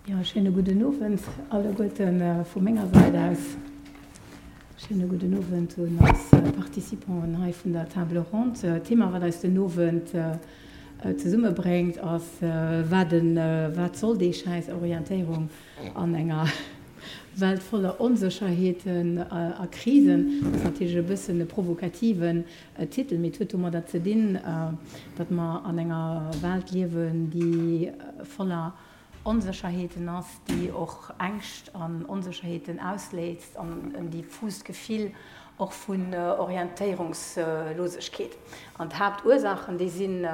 Jo, schéine gudden Owend alleguerten vu menger Säit aus. Schéine gudden Owend un eis Participanten hei vun der Table ronde. D'Thema, wat eis den Owend zesummebréngt, ass, Wat wat soll déi schäiss Orientéierung an enger Welt voller Onsécherheeten a Krisen? Dat ass natierlech e bëssen e provokativen Titel, mee et huet domadder ze dinn, datt mer an enger Welt liewen, déi voller Onsécherheeten ass, déi och Ängscht an Onsécherheeten ausléist an en diffust Gefill och vun Orientéierungslosegkeet. An d'Haaptursaachen, déi sinn,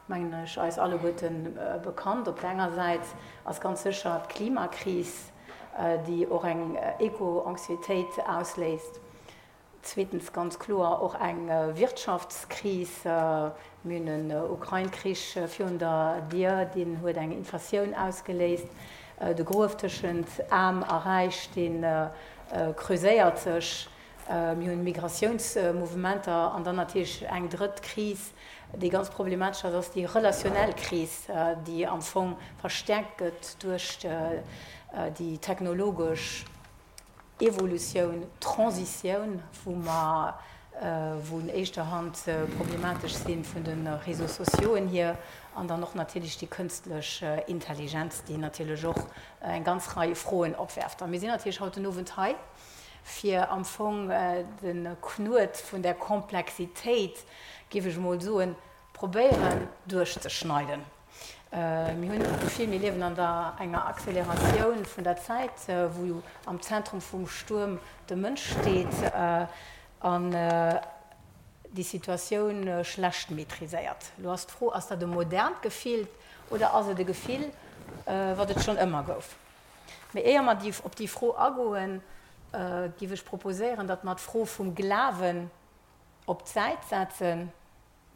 mengen ech, eis alleguerte bekannt. Op der enger Säit ass ganz sécher d'Klimakris, déi och eng Eco-Anxiétéit ausléist. Zweetens ganz kloer och eng Wirtschaftskris. Mir hunn en Ukrain-Krich virun der Dier, deen huet eng Inflatioun ausgeléist. De Gruef tëschent Aarm a Räich, dee creuséiert sech. Mir hunn Migratiounsmouvementer an dann natierlech eng drëtt Kris, déi ganz problematesch ass, ass déi relationnel Kris, déi am Fong verstäerkt gëtt duerch déi technologesch Evolutioun, Transitioun, wou mer, wou un éischter Hand problematesch si vun de Réseaux sociauxen hier, an dann och natierlech déi kënstlech Intelligenz, déi natierlech och eng ganz Rei Froen opwerft. A mir sinn natierlech haut den Owend hei, fir am Fong de Knuet vun där Komplexitéit, géif ech emol soen, probéieren duerchzeschneiden. Mir hunn d'Gefill, mir liewen an der enger Acceleratioun vun der Zäit, wou am Zentrum vum Stuerm de Mënsch steet an déi Situatioun schlecht maîtriséiert. Elo ass d'Fro, Ass dat e modernt Gefill oder ass et e Gefill, wat et schonn ëmmer gouf? Mee éier mer op déi Fro agoen, géif ech proposéieren, datt mer d'Fro vum Glawen op d'Säit setzen.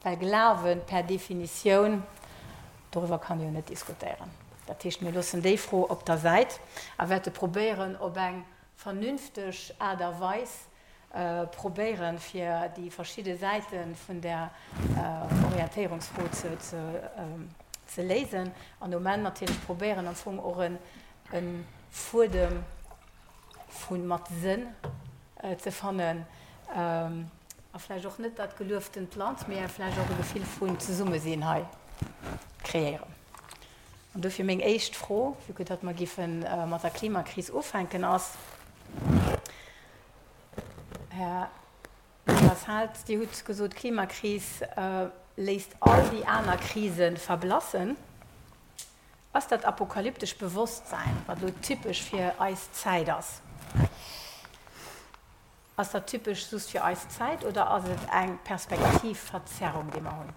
Well Glawen per Definitioun, doriwwer kann ee jo net diskutéieren. Dat heescht, mir loossen déi Fro op der Säit a wäerte probéieren, op eng vernünfteg Aart a Weis probéieren, fir déi verschidde Säite vun där Orientéierungsfro ze léisen an um Enn natierlech probéieren, am Fong och e Fuedem vu mat Sënn ze fannen a vläicht och net dat gelueftent Land, mee vläicht och e Gefill vun Zesummesinn hei kreéieren. An dofir meng éischt Fro, vue que datt mer géife mat der Klimakris ufänken, ass, Här Lasalle, Dir hutt gesot, d'Klimakris léisst all déi aner Krise verblassen. Ass dat apokalyptesch Bewosstsäin, wat elo typesch fir eis Zäit ass, ass dat typesch just fir eis Zäit oder ass et eng Perspektivverzerrung, déi mer hunn?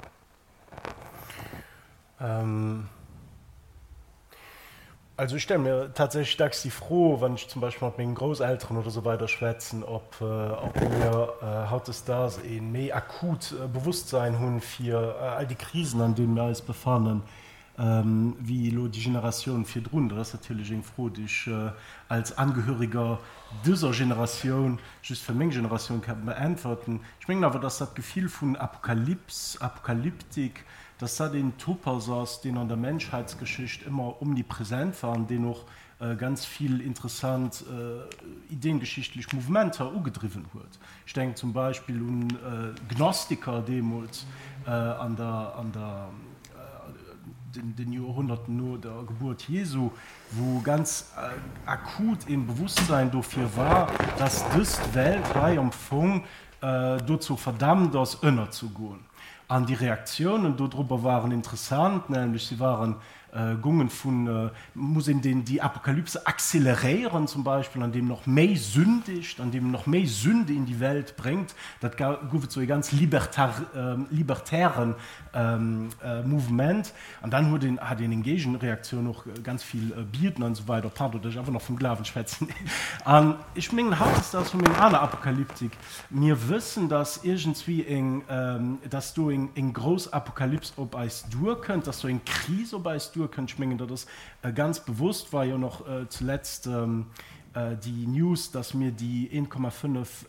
Also ech stelle mir tatsächlech dacks déi Fro, wann ech zum Beispill mat mengen Grousselteren oder esou weider schwätzen, ob mir hautdesdaags ee méi akut Bewusstsein hunn fir all déi Krisen, an deenen mir eis befannen, wéi elo déi Generatioun virdrun. Dat ass natierlech eng Fro, déi ech als Angehöriger dëser Generatioun just fir meng Generatioun ka beäntwerten. Ech mengen awer, dass dat Gefill vun Apokalyps, Apokalyptik, dass dat een Topos ass, deen an der Menschheitsgeschicht ëmmer omnipresent war an deen och ganz vill interessant ideengeschichtlech Mouvementer ugedriwwen huet. Ech denken zum Beispill un d'Gnostiker deemools an der, an der, den Joerhonnerten no der Gebuert Jesu, wou ganz akut een Bewusstsein dofir war, dass dëst Welt hei am Fong dozou verdammt ass, ënnerzegoen. An déi Reaktiounen dodrobber waren interessant, nämlech si waren Gongen vun, muss een deen déi Apokalypse acceleréieren zum Beispill, an deem en och méi sündigt, an deem en och méi Sünde in die Welt bréngt. Dat gouf et sou e ganz libertar, libertären Mouvement. An dann huet een, hat een eng Géigenreaktioun och, ganz vill bieden an esou weider. Pardon, datt ech einfach nach vum Glawen schwätzen. An ech mengen, hautdesdaags hu mir eng aner Apokalyptik. Mir wëssen, dass iergendswéi eng, dass do eng grouss Apokalyps op eis duerkënnt, dass do eng Kris op eis duerkënnt. Ech mengen, dat ass ganz bewusst, war jo nach zuletzt déi News, dass mir déi 1,5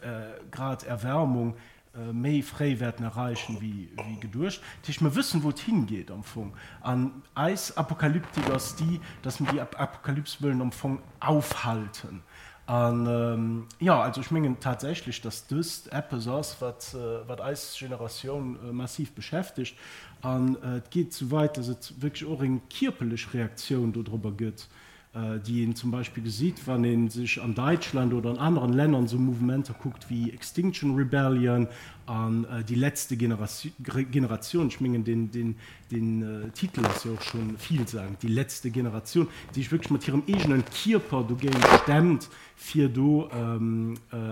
Grad Erwärmung. méi fréi wäerten erreichen wéi geduecht. Dat heescht, mir wëssen, wou et hingeet am Fong. An eis Apokalyptik ass déi, dass mir déi Apokalyps wëllen am Fong aufhalten. An, jo, also ech mengen tatsächlech, dass dëst eppes ass, wat, wat eis Generatioun massiv beschäftegt. An et geet esou weit, dass et wierklech och eng kierperlech Reaktioun dodrobber gëtt, déi een zum Beispill gesitt, wann ee sech an Däitschland oder an aneren Lännern esou Mouvementer kuckt wéi Extinction Rebellion an Die letzte Generation. Ech mengen, deen Den Titel ass jo och scho villsagend, Die letzte Generation, déi sech wierklech mat hirem eegenen Kierper dogéint stemmt, fir do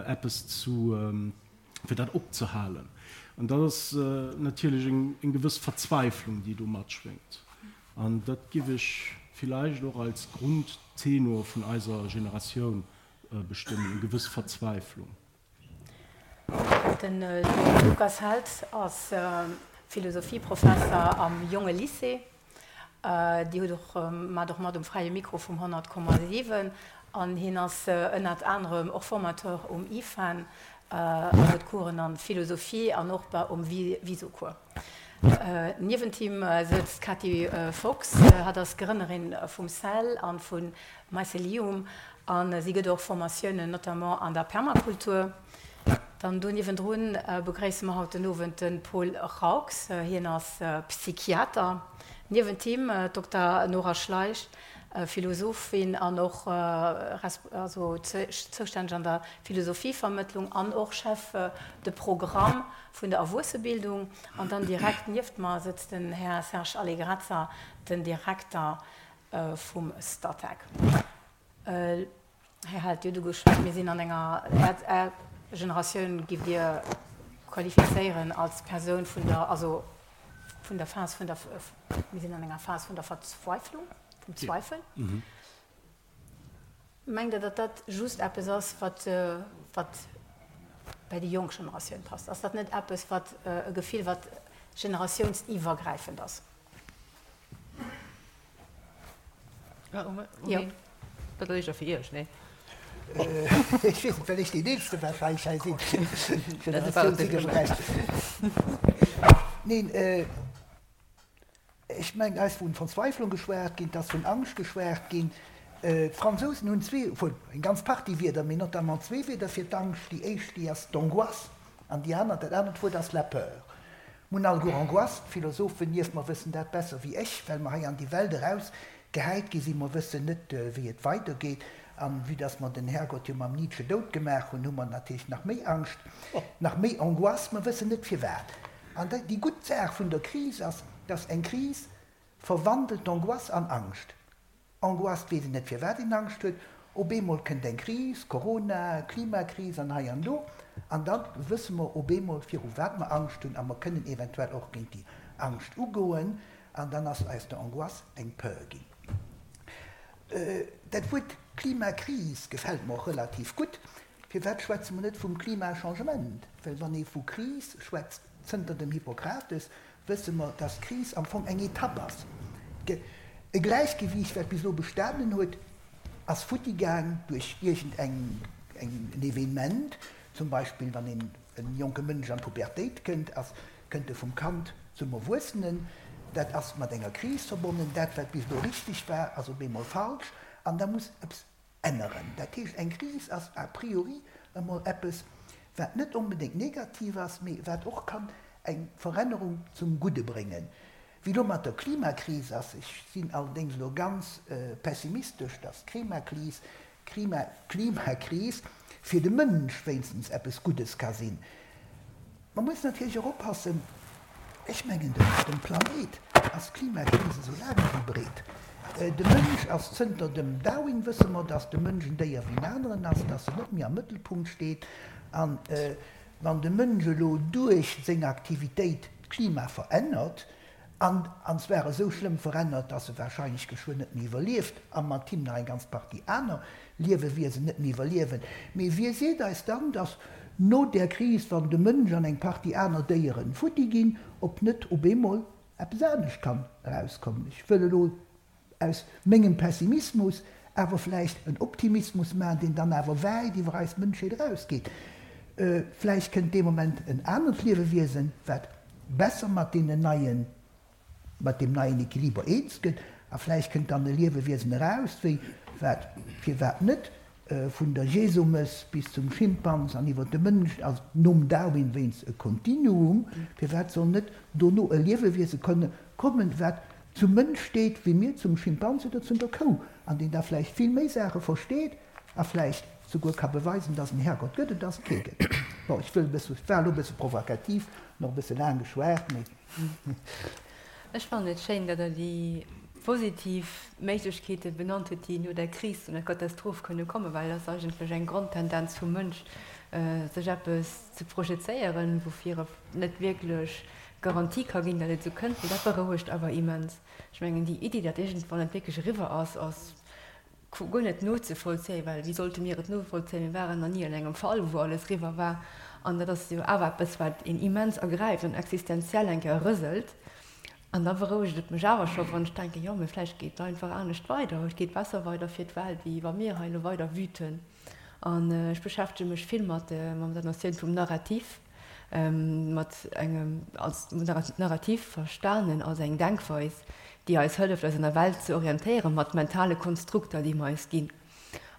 eppes zu, fir dat opzehalen. An dat ass natierlech eng gewëss Verzweiflung, déi do matschwéngt. An dat giff ech villäicht och als Grundtenor vun eiser Generatioun bestëmmen, eng gewëss Verzweiflung. De Lukas Held ass Philosophieprofesser am Jonge Lycée. Dir hutt och, maacht och mat um Fräie Mikro vum 100,7 an hien ass ënnert anerem och Formateur um IFAN an huet Coursen an Philosophie an och um Viso-Cours. Niewent him sëtzt d'Katy Fox. Hatt ass Grënnerin vum Cell an vu Mycelium a si gëtt och Formatiounen, notamment an der Permakultur. Dann do niewendrun begréisse mer haut den Owend de Paul Raux. Hien ass Psychiater. Niewent him d'Dokter Nora Schleich, Philosophin an och also zoustänneg an der Philosophievermëttlung an och Chef de Programme vun der Erwuessebildung. An dann direkt nieft mer sëtzt den Här Serge Allegrezza, den Direkter vum Statec. Här Held, Dir hutt ugeschwat, mir sinn an enger, Är Generatioun giff Dir qualifizéieren als Persoun vun der, also vun der Phas vun der, mir sinn an enger Phas vun der Verzweiflung, vum Zweifel. Mengt Der, datt dat just eppes ass, wat, wat bei déi jonk Generatioun passt? Ass dat net eppes, wat e Gefill, wat generatiounsiwwergräifend ass? Jo. Dat ass éischter fir Iech, nee? Ech weess net, well ech deen Eelste warscheinlech hei sinn. Generatiounsiwwergräifend. Neen. Ech mengen, hei ass vun Verzweiflung geschwat ginn, et ass vun Angscht geschwat ginn. D'Fransousen hunn zwee, obwuel eng ganz Partie Wierder, mee notamment zwee Wierder fir d'Angscht. Déi éischt, déi ass d'Angoisse an déi aner, dat anert Wuert ass la peur. Mir hunn alleguer Angoisse, d'Philosophen nieft mer wëssen dat besser wéi ech, well mer hei an déi Welt eraus gehäit gi sinn. Mer wëssen net, wéi et weidergeet. An vue dass mer den Herrgott jo mam Nietzsche dout gemaach hunn, hu mer natierlech nach méi Angscht, nach méi Angoisse. Mer wëssen net firwat. An déi gutt Saach vun der Kris ass, dass eng Kris verwandelt d'Angoisse an Angscht. Angoisse, et weess een net firwat een Angscht huet, op eemol kënnt eng Kris, Corona, Klimakris an hei an do, an da wësse mer op eemol viru wat mer Angscht hunn a mer kënnen eventuell och géint déi Angscht ugoen an dann ass aus der Angoisse eng Peur ginn. Dat Wuert Klimakris gefält mer och relativ gutt. Firwat schwätze mer net vum Klimachangement? Well wann ee vu Kris schwätzt, zënter dem Hippokrates, wësse mer, dass d'Kris am Fong eng Etapp ass. E Gläichgewiicht, wat bis elo bestanen huet, ass futti gaang duerch iergend eng en Evenement. Zum Beispill wann een e jonke Mënsch an d'Pubertéit kënnt, ass kënnt e vum Kand zum Erwuessenen. Dat ass mat enger Kris verbonnen. Dat, wat bis elo richteg war, ass op eemol falsch an da muss eppes änneren. Dat heescht, eng Kris ass a priori emol eppes, wat net onbedéngt negativ ass, mee wat och kann eng Verännerung zum Gudde bréngen. Wéi elo mat der Klimakris ass, ech sinn allerdéngs elo ganz pessimistesch, dass d'Klimakris, Klimakris fir de Mënsch wéinstens eppes Guddes ka sinn. Mer mussen natierlech och oppassen, ech mengen dem Planéit ass d'Klimakris esou laang ewéi breet. De Mënsch ass, zënter dem Darwin wësse mer, datt de Mënsch en Déier wéi en aneren ass, datt en net méi am Mëttelpunkt steet. An wann de Mënsch elo duerch seng Aktivitéit d'Klima verännert, An, an zwar esou schlëmm verännert, dass e wahrscheinlech geschwënn net méi iwwerlieft, a mat him nach eng ganz Partie aner Liewewiesen net méi iwwerliewen. Mee wie seet eis dann, dass no där Kris, wann de Mënsch an eng Partie aner Déieren futti ginn, ob net op eemol eppes anescht kann erauskommen? Ech wëll elo aus mengem Pessimismus awer vläicht en Optimismus maachen, deen dann awer wäit iwwer eis Mënschheet erausgeet. Vläicht kënnt dee Moment en anert Liewewiesen, wat besser mat deenen neien, mat deem neien Equiliber eens gëtt. A vläicht kënnt dann e Liewewiesen eraus, wéi wat, firwat net, vun der Jesumëss bis zum Schimpans an iwwer de Mënsch, ass nom Darwin wéinst e Kontinuum. Firwat soll net dono e Liewewiese kënne kommen, wat zum Mënsch steet, wéi mir zum Schimpans oder zu der Kou, an deen da vläicht vill méi Saache versteet a vläicht souguer ka beweisen, dass en Herrgott gëtt et, dass et kee gëtt. Bon, ech wëll e bësse, ech war elo e bësse provokativ an och e bësse laang geschwat, mee. Ech fannen et schéin, datt Der déi positiv Méiglechkeete benannt hutt, déi no der Kris, no der Katastroph kënne kommen, well et ass eigentlech eng Grondtendenz vum Mënsch, sech eppes ze projezéieren, woufir e net wierklech Garantie ka ginn, datt et esou kënnt, mee dat berouegt awer immens. Ech mengen, déi Iddi, datt iergendwann et wierklech eriwwer ass, ass guer net nozevollzéien, well wéi sollte mir et novollzéien? Mir waren nach ni an engem Fall, wou alles eriwwer war. An dat ass jo awer eppes, wat een immens ergräift an existenziell eng Kéier rëselt. An da berouegt et mech awer scho, wann ech denken, jo, mee vläicht geet et einfach anescht weider, et geet besser weider fir d'Welt, wéi wa mir hei elo weider wüten. An ech beschäftege mech vill mat der Notioun vum Narrativ. mat engem als Narrativ verstanen als eng Denkweis, déi eis hëlleft, eis an der Welt ze orientéieren, mat mentale Konstrukter, déi mer eis ginn.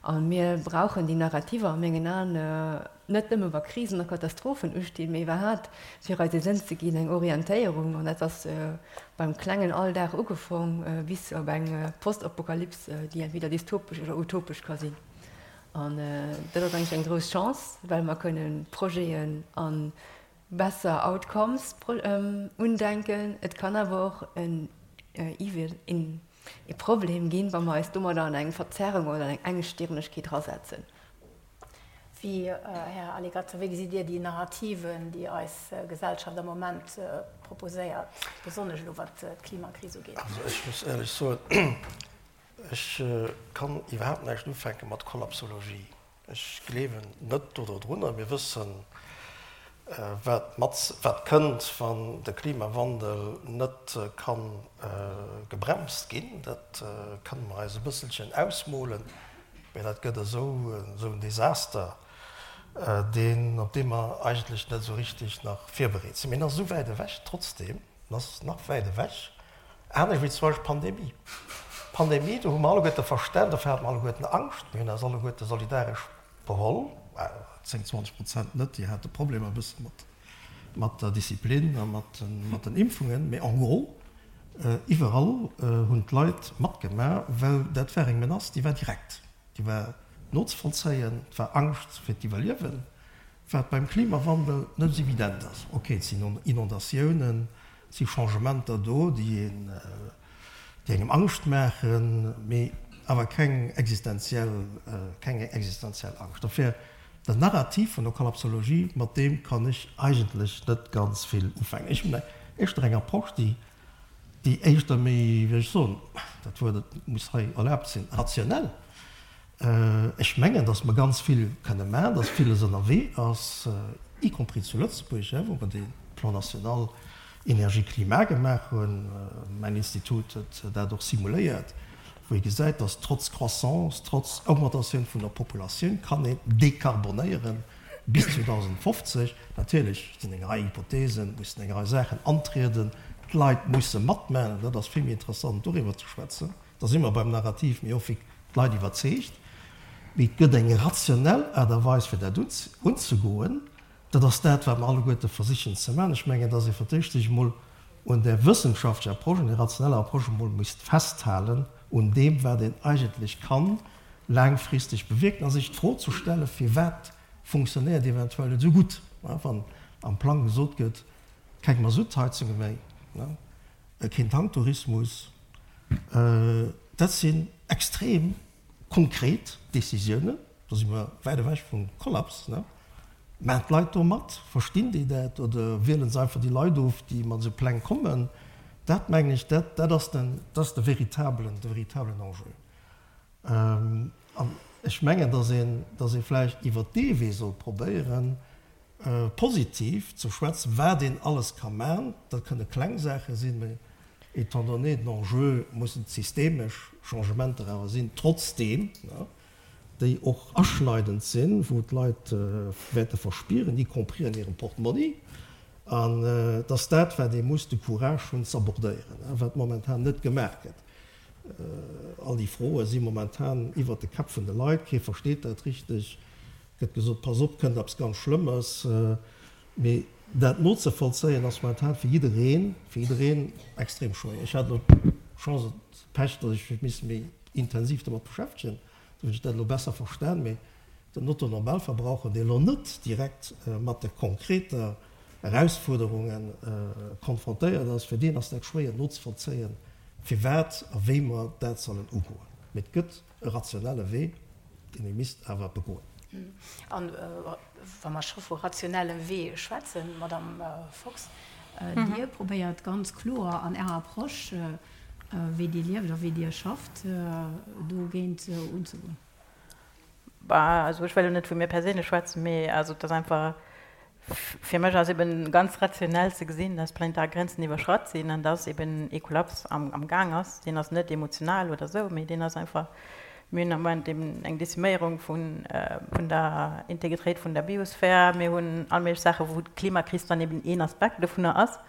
A mir brauchen déi Narrativer a mengen Aen net nëmme wa Krisen a Katastrophen ustinn, mee iwwerhaapt fir eis e Sënn ze ginn, eng Orientéierung. An dat ass beim klengen Alldag ugefong bis op eng Postapokalyps, déi entweder dystopesch oder utopesch ka sinn. An dat ass eigentlech eng grouss Chance, well mer kënne Projeten a besser Outcomes undenken. Et kann awer och en Evil, e Problem ginn, wa mer eis domadder an eng Verzerrung oder an eng Engstirnegkeet erasetzen. Wéi, Här Aligazza, wéi gesitt Dir déi Narrativen, déi eis Gesellschaft am Moment proposéiert, besonnesch elo wat d'Klimakris ugeet? Also ech muss éierlech soen, Ech kann iwwerhaapt näischt ufänke mat Kollapsologie. Ech gleewen net do dodrunner. Mir wëssen, wat mat, wat kënnt, wann de Klimawandel net ka gebremst ginn. Dat kënne mer eis e bësselchen ausmolen, mä dat gëtt esou esou en Desaster, deen, op dee mer eigentlech net esou richtig nach virbereet sinn. Mee en ass esou wäit ewech trotzdem, en ass nach wäit ewech. Anescht wéi zum Beispill d'Pandemie. D'Pandemie, do hu mer alleguerte verstan, dofir hate mer alleguerten Angscht, mir hunn eis alleguerte solidaresch beholl, 10, 20 Prozent net, déi hate Problemer e bësse mat mat der Disziplin a mat mat den Impfungen, mee en gros iwwerall hunn d'Leit matgemaach, well dat war eng Menace, déi war direkt, déi war nozevollzéien, et war Angscht fir d'Iwwerliewen. Wat beim Klimawandel net esou evident ass. Ok, et sinn Inondatiounen, et si Changementer do, déi een, déi engem Angscht maachen, mee awer keng existenziell, keng existenziell Angscht. Dofir, den Narrativ vun der Kollapsologie, mat deem kann ech eigentlech net ganz vill ufänken. Ech hunn éischter eng Approche, déi, déi éischter méi, wéi soll ech soen, dat Wuert, et muss hei erlaabt sinn, rationell Ech mengen, datt mer ganz vill kënne maachen, datt villes ënnerwee ass, y compris zu Lëtzebuerg, wou mer dee Plan national énergie-climat gemaach hunn. Mäin Institut huet dat och simuléiert, wou ee gesäit, datt trotz Croissance, trotz Augmentatioun vun der Populatioun kann een dekarbonéiere bis 2050. Natierlech sinn eng Rei Hypothesen, mussen eng Rei Saachen antrieden, d'Leit musse matmaachen, dat ass vill méi interessant doriwwer ze schwätzen. Da si mer beim Narrativ, mee och wéi d'Leit iwwerzeegt. Mee et gëtt eng rationell Aart a Weis, fir dat unzegoen. Dat ass dat, wat mer alleguerte versichen ze maachen. Ech mengen, dass ee fir d'éischt sech emol un där wëssenschaftlecher Approche, un där rationeller Approche emol misst festhalen, un deem, wat een eigentlech kann laangfristeg bewierken, a sech d'Fro ze stellen, Firwat funktionéiert eventuell net esou gutt, wann am Plang gesot gëtt, keng Masuttheizunge méi, keen Tanktourismus? Dat sinn extrem konkret Décisiounen, do si mer wäit ewech vum Kollaps. Maachen d'Leit do mat? Verstinn déi dat oder wiele se einfach déi Leit of, déi mat esou Pläng kommen? Dat mengen ech, dat ass den, dat ass de veritablen, de veritablen Enjeu. An ech mengen, datt een, datt ee vläicht iwwert dee Wee soll probéieren, positiv ze schwätzen, wat een alles ka man. Dat kënne kleng Saache sinn, mä étant donné den Enjeu mussen et systemesch Changementer awer sinn, trotzdeem. déi och aschneidend sinn, wou d'Leit wäerte verspieren, y compris an hirem Portmonni. An et ass dat, wat ee muss de Courage hunn z'abordéieren, wat momentan net gemaach gëtt. All déi Froe si momentan iwwert de Käpp vun de Leit, kee versteet dat richteg. Gëtt gesot, pass op, kënnt eppes ganz Schlëmmes. Mee dat nozevollzéien ass momentan fir jiddereen, fir jiddereen extrem schwéier. Ech hat elo d'Chance oder d'Pech, datt ech mech misse méi intensiv domat beschäftegen, do hunn ech dat elo besser verstan. Mee den Otto Normalverbraucher, dee elo net direkt mat de konkreter Erausfuerderunge konfrontéiert ass, fir deen ass dat schwéier nozevollzéien, firwat a wéi mer dat sollen ugoen. Mee et gëtt e rationelle Wee, deen ee misst awer begoen. An wa mer scho vu rationellem Wee schwätzen, Madamm Fox, Dir probéiert ganz kloer an Ärer Approche, wéi Dir lieft a wéi Dir schafft, dogéint unzegoen. Bah, also ech wëll elo net vu mir perséinlech schwätzen, mee also et ass einfach, fir mech ass eben ganz rationell ze gesinn, dass planetar Grenzen iwwerschratt sinn an dass eben ee Kollaps am am Gaang ass. Deen ass net emotional oder esou, mee deen ass einfach, mir hunn am Moment eben eng Deziméierung vun vun der Integritéit vun der Biosphär, mir hunn all méiglech Saachen, wou d'Klimakris dann eben een Aspekt dovunner ass.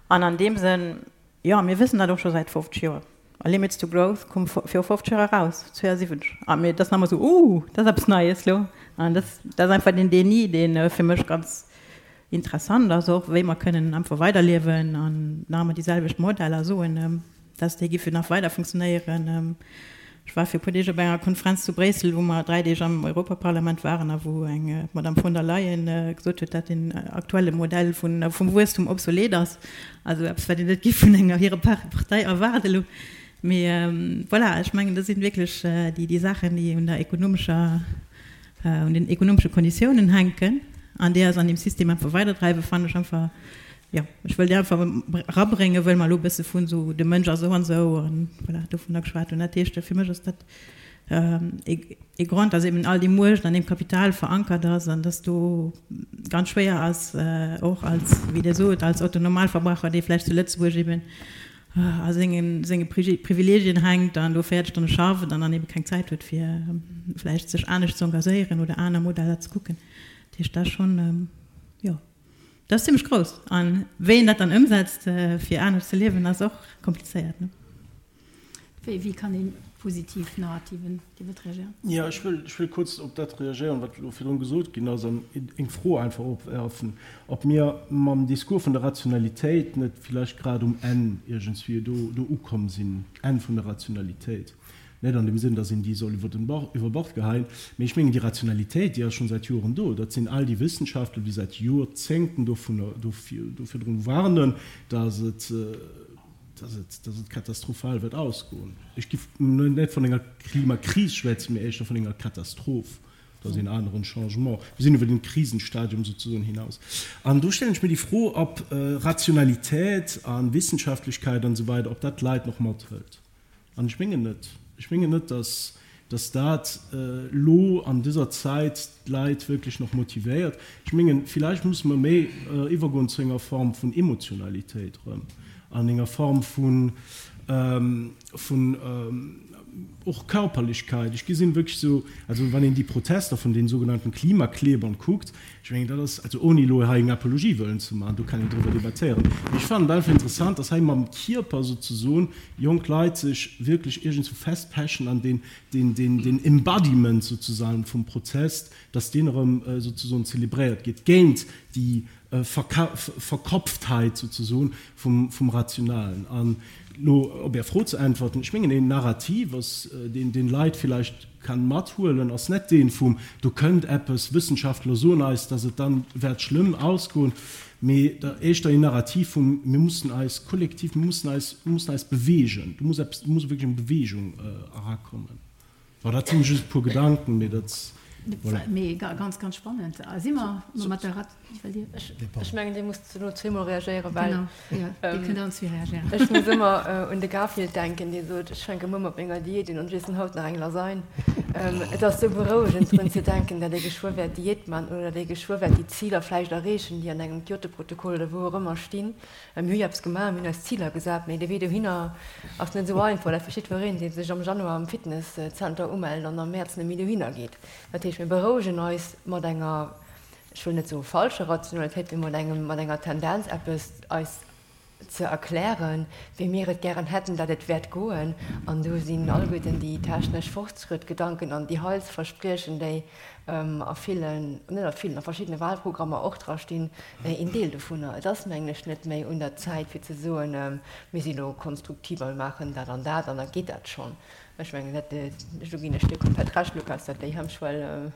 An an deem Sënn, jo, mir wëssen dat och scho säit 50 Joer. A Limits to Growth koum viru 50 Joer eraus, 72. A mir, dat ass nach emol esou, Ooh, dat ass eppes Neies lo. An dat, dat ass einfach den Déni, dee fir mech ganz interessant ass och, wéi mer kënnen einfach weiderliewen an nach ëmmer déi selwecht Modeller soen, dass déi giffe nach weider funktionéieren. Ech war fir e puer Deeg op enger Konferenz zu Bréissel, wou mer 3 Deeg am Europaparlament waren a wou eng d'Madame von der Leyen gesot huet, dat den aktuelle Modell vun vum Wuesstum obsolet ass. Also eppes, wat een net géif vun enger hirer Partei erwaarden elo. Mee voilà, ech mengen, dat sinn wierklech déi déi Saachen, déi un der ekonomescher, un den ekonomesche Konditiounen hänken an déi eis an deem System einfach weiderdreiwen, fannen ech einfach, Jo, ech wëll déi einfach erabréngen, wëll mer elo e bësse vun esou de Mënsch ass esou an esou an voilà, dovunner geschwat hunn. Dat heescht, fir mech ass dat ee Grond, dass eben all déi Muecht an deem Kapital verankert ass an dass do ganz schwéier ass, och als, wéi Dir sot, als Otto-Normalverbraucher, dee vläicht zu Lëtzebuerg eben a senge senge Privilegien hänkt an do 40 Stonne schafft an dann ebe keng Zäit huet, fir vläicht sech anescht ze engagéieren oder aner Modeller ze kucken. Dat heescht, dat ass schonn, jo. Dat ass zimmlech grouss. A wéi een dat dann ëmsetzt, fir anescht ze liewen, ass och komplizéiert, ne? Wéi kann ee positiv Narrativen, Dir wëllt reagéieren? Jo, ech wëll, ech wëll kuerz op dat reagéieren, wat elo virdrun gesot ginn ass, an eng Fro einfach opwerfen, ob mir mam Discours vun der Rationalitéit net villäicht grad um Enn iergendswéi do, do ukomm sinn, Enn vun der Rationalitéit. Net an dem Sënn, datt een déi soll iwwer den Bord, iwwer Bord geheien, mee ech mengen, déi Rationalitéit, déi ass schonn säit Joren do. Dat sinn all déi Wëssenschaftler, déi säit Joerzéngten dovunner, dofir, do virdrun warnen, datt et, datt et, datt et katastrophal wäert ausgoen. Ech giff net vun enger Klimakris schwätzen, mee éischter vun enger Katastroph. Dat ass een aneren Changement. Mir sinn iwwer den Krisenstadium souzesoen hinaus. An do stellen ech mir déi Fro, ob Rationalität a Wissenschaftlechkeit an esou weider, ob dat d'Leit nach mathëlt. An ech mengen net. Ech mengen net, dass, dass dat elo an dëser Zäit d'Leit wierklech nach motivéiert. Ech mengen, villäicht musse mer méi iwwergoen zu enger Form vun Emotionalitéit erëm an enger Form vun, vun och Körperlichkeit. Ech gesinn wierklech esou, also wann een déi Protester vun den sougenannten Klimaklebern kuckt, Ech mengen, dat ass, also ouni elo hei eng Apologie wëllen ze maachen, do kann een driwwer debattéieren, mee ech fannen et einfach interessant, dass hei mam Kierper souzesoen jonk Leit sech wierklech iergendswou festpechen an deen, deen, deen, deen Embodiment souzesagen vum Protest, dass deen erëm souzesoen zelebréiert gétt géint déi Verkopftheit souzesoen vum, vum Rationalen. An elo op Är Fro ze äntwerten, ech mengen, een Narrativ ass, deen, deen Leit villäicht kann mathuelen, ass net deen vum do kënnt eppes, Wëssenschaftler soen eis, dass et dann wäert schlëmm ausgoen, mee da éischter een Narrativ vum mir mussen eis kollektiv, mir mussen eis, mir mussen eis beweegen, do muss eppes, do muss wierklech eng Beweegung erakommen. Bon, dat sinn just e puer Gedanken, mee dat. Voilà. Mee ganz, ganz spannend. Si mer mat der Rat. Ech mengen, Dir musst elo zweemol reagéieren, well. Genau, jo, Dir kënnt allen zwee reagéieren. Ech muss ëmmer un de Garfield denken, dee sot, Ech fänke muer mat menger Diät un an ech iessen haut nach eng Lasagne. Et ass sou berouegend, drun ze denken, datt ee geschwë wäert Diät man oder datt ee geschwë wäert déi Ziler vläicht erreechen, déi an engem Kyoto-Protokoll oder wou och ëmmer stinn. Mir hu jo eppes gemaach, mir hunn eis Ziler gesat, mee de Wee dohinner ass net esou einfach. Dat versteet wuereen, dee sech am Januar am Fitnesszenter umellt an am Mäerz net méi dohinner geet. Dat heescht, mir berouegen eis mat enger, ech wëll net soe falscher Rationalitéit, mee mat engem, mat enger Tendenz, eppes eis ze erklären, wéi mir et gären hätten, datt et wäert goen. An do sinn alleguerten déi technesch Fortschrëttgedanken an déi Heilsverspriechen, déi a villen, net a villen, a verschiddene Wahlprogrammer och dra stinn, een Deel dovunner. Et ass, mengen ech, net méi un der Zäit fir ze soen, mir si lo konstruktiv a mir maachen dat an dat an da geet dat schonn. Ech mengen, dat, do ginn ech dir komplett Recht, Lukas, datt déi Hemmschwell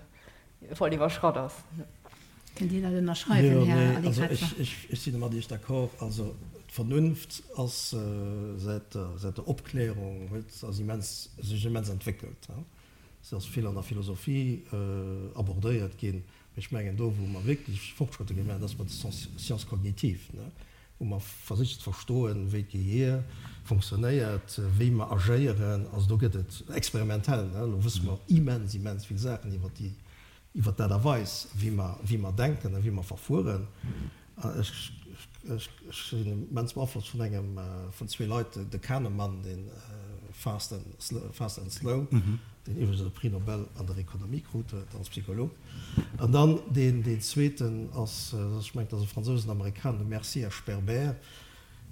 voll iwwerschratt ass. Kënnt Dir dat ënnerschreiwen, Här Allegrezza? Ech si mat Iech d'accord. Also d'Vernunft ass säit der Opklärung huet ass immens, sech immens entwéckelt. Se ass vill an der Philosophie abordéiert ginn. Mee ech mengen, do wou mer wierklech Fortschrëtte gemaach hunn, ass bei de Sciences cognitives, wou mer versicht ze verstoen, wéi d'Gehier fonctionnéiert, wéi mer agéieren. Also do gëtt et experimentell, elo wësse mer immens, immens vill Saachen iwwer déi, iwwer d'Aart a Weis, wéi mer, wéi mer denken a wéi mer verfueren. Ech sinn immens beaflosst vun engem, vun zwee Leit, de Kahneman, dee Fast and, Fast and Slow, deen iwwregens e Prix Nobel an der Ekonomie krut huet als Psycholog. An dann deen, deen zweeten ass, ech mengen, dat ass e Fransous, en Amerikaner, de Mercier a Sperber,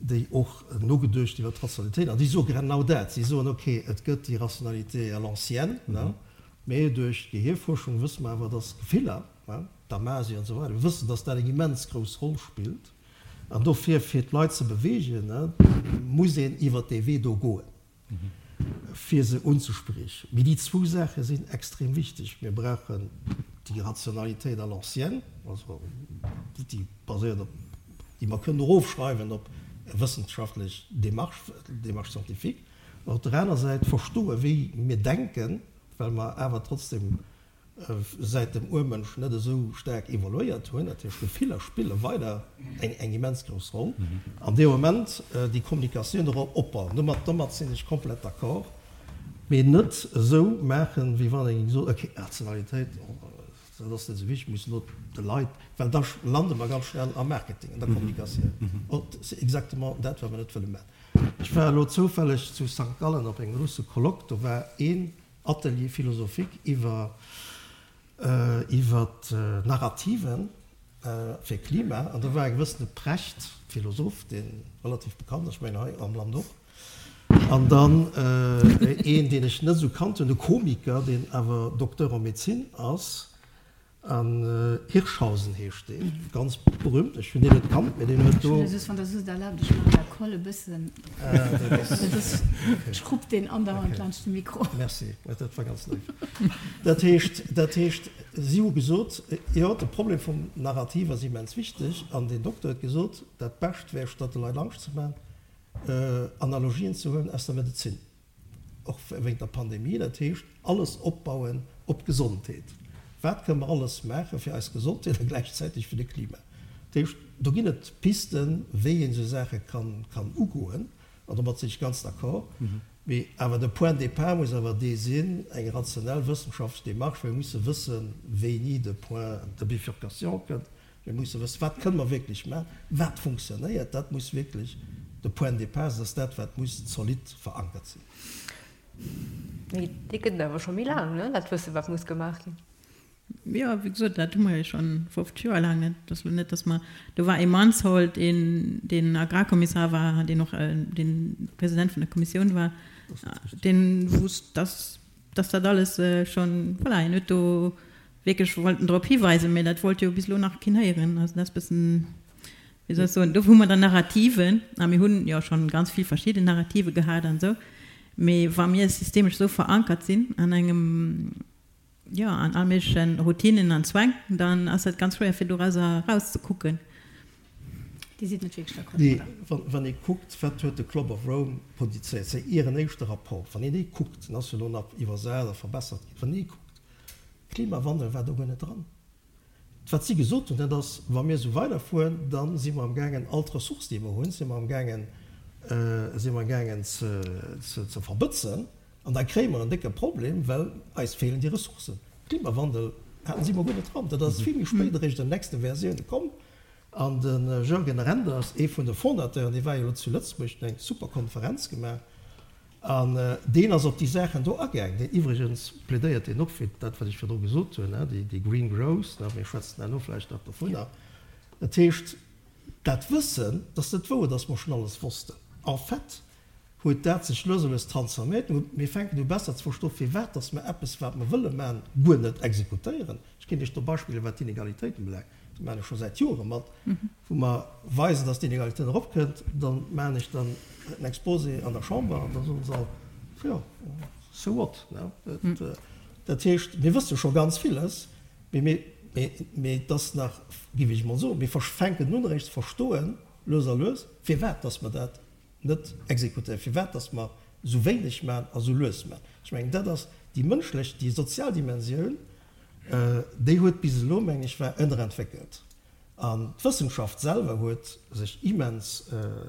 déi och nogeduecht iwwer d'Rationalitéit, an déi soe genau dat. Si soen, ok, et gëtt déi Rationalité à l'ancienne, mee duerch d'Gehierfuerschung wësse mer awer, dass Gefiller, Damasi an esou weider, mir wëssen, dass dat eng immens grouss Roll spillt. An dofir, fir d'Leit ze beweegen, muss een iwwert dee Wee do goen, fir se unzespriechen. Mee déi zwou Saache sinn extrem wichteg. Mir brauchen déi Rationalitéit à l'ancienne, also déi baséiert op, déi mer kënnen erofschreiwen op wëssenschaftlech Démarche, Démarche scientifique, an op der aner Säit verstoen, wéi mir denken, well mer awer trotzdem säit dem Urmënsch net esou staark evoluéiert hunn, dat heescht Gefiller spille weider eng immens grouss Roll an deem Moment déi Kommunikatioun erop opbauen. Domat domat sinn ech komplett d'accord, mee net esou maachen, wéi wann ee géing soen, ok, Rationalitéit, dat ass net esou wichteg, mir mussen elo de Leit, well da lande mer ganz schnell am Marketing, an der Kommunikatioun, c'est exactement dat, wat mer net wëlle maachen. Ech war elo zoufälleg zu Sankt Gallen op engem grousse Colloque, do war een Atelier philosophique iwwer iwwer Narrativen fir Klima an do war e gewëssene Precht, Philosoph, dee relativ bekannt ass, ech mengen hei am Land och, an dann een, deen ech net esou kannt hunn, e Komiker, deen awer Docteur en médecine ass, An Hirschhausen heescht deen, ganz berühmt, ech hunn deen net kannt, mee deen huet do. Ech hunn just, wann Der soss et erlaabt, ech maachen der Koll e bëssen, dat ass, ech krupp deen andauernd laanscht de Mikro. Merci, dat war ganz léif. Dat heescht, dat heescht, si hu gesot, jo, de Problem vum Narrativ ass immens wichteg, an deen Dokter huet gesot, dat Bescht wär, statt de Leit Angscht ze maachen, Analogien ze huelen aus der Medezin. Och wéint der Pandemie, dat heescht alles opbauen op d'Gesondheet. Wat kënne mer alles maache fir eis Gesondheet a gläichzäiteg fir de Klima? Dat heescht, do ginn et Pisten, wéi een esou Saache kann ugoen, an domat sinn ech ganz d'accord. Mee awer de Point de départ muss awer dee sinn, eng rationell wëssenschaftlech Démarche. Mir musse wëssen, wéini de Point de bifurcation kënnt, Mir musse wëssen, wat kënne mer wierklech maachen, wat funktionéiert. Dat muss wierklech de Point de départ sinn, dat ass dat, wat muss zolidd verankert sinn. Mee dee gëtt et awer scho méi laang, ne, dat Wëssen, wat muss gemaach ginn. Jo, wéi gesot, dat hu mer jo scho 50 Joer laang. Et ass elo net, datt mer, do war ee Mansholt, een, deen Agrarkommissar war, deen och dee President vun der Kommissioun war, dee wousst, datt, datt dat alles schonn, voilà, hien huet do wierklech wollten drop hiweisen, mä dat wollt jo bis elo nach keen héieren. Also dat ass e bëssen, wéi soll ech soen, do hu mer dann Narrativen, a mir hunn jo schonn ganz vill verschidden Narrative gehat an esou, mä wa mir systemesch esou verankert sinn an engem, jo, an all méigleche Routinen an Zwäng, dann ass dat ganz schwéier fir dorauser erauszekucken. Dir sidd net wierklech d'accord Nee, domadder? wann ee kuckt, wat huet de Club of Rome produzéiert, säi ieren éischte Rapport, wann een dee kuckt, den ass jo elo nach iwwersat a verbessert ginn, wann een dee kuckt, Klimawandel war do guer net dran. Wat si gesot hunn, dat ass, wa mir esou weiderfueren, da si mer amgaangen all d'Ressources, déi mer hunn, si mer amgaangen, si mer amgaangen ze verbëtzen an da kréie mer en décke Problem, well eis feelen déi Ressourcen. Klimawandel haten si mol guer net dran. Dat ass vill méi spéit eréischt an den nächste Versioune komm. An de Jürgen Renders, ee vun de Fondateuren, dee war jo elo zu Lëtzebuerg, huet eng super Konferenz gemaach an deen ass op déi Saachen do agaang. Deen iwwregens plädéiert deen och fir dat, wat ech virdru gesot hunn, déi Green Growth, mir schwätzen herno vläicht nach dovunner. Dat heescht, dat Wëssen, dat ass net wouer, datt mer schonn alles wossten. En fait huet dat sech lues a lues transforméiert. Mir fänken u besser ze verstoen, firwat datt mer eppes, wat mer wëlle maachen, guer net exekutéieren. Ech kéint Iech do Beispiller, wat d'Inegalitéiten ubelaangt, do maachen ech scho säit Jore mat, wou mer weisen, datt d'Inegalitéit eropkënnt, da maachen ech dann en Exposé an der Chamber an da soen se all, jo, so what? Dat heescht, mir wësse scho ganz villes, mee mee et ass nach, géif ech emol soen, mir fänken un eréischt ze verstoen, lues a lues, firwat datt mer dat net exekutéieren, firwat datt mer esou wéineg maachen a esou lues maachen. Ech mengen, dat ass déi mënschlech, déi sozial Dimensioun, Déi huet bis elo, meng ech, war ënnerentwéckelt. An d'Wëssenschaft selwer huet sech immens,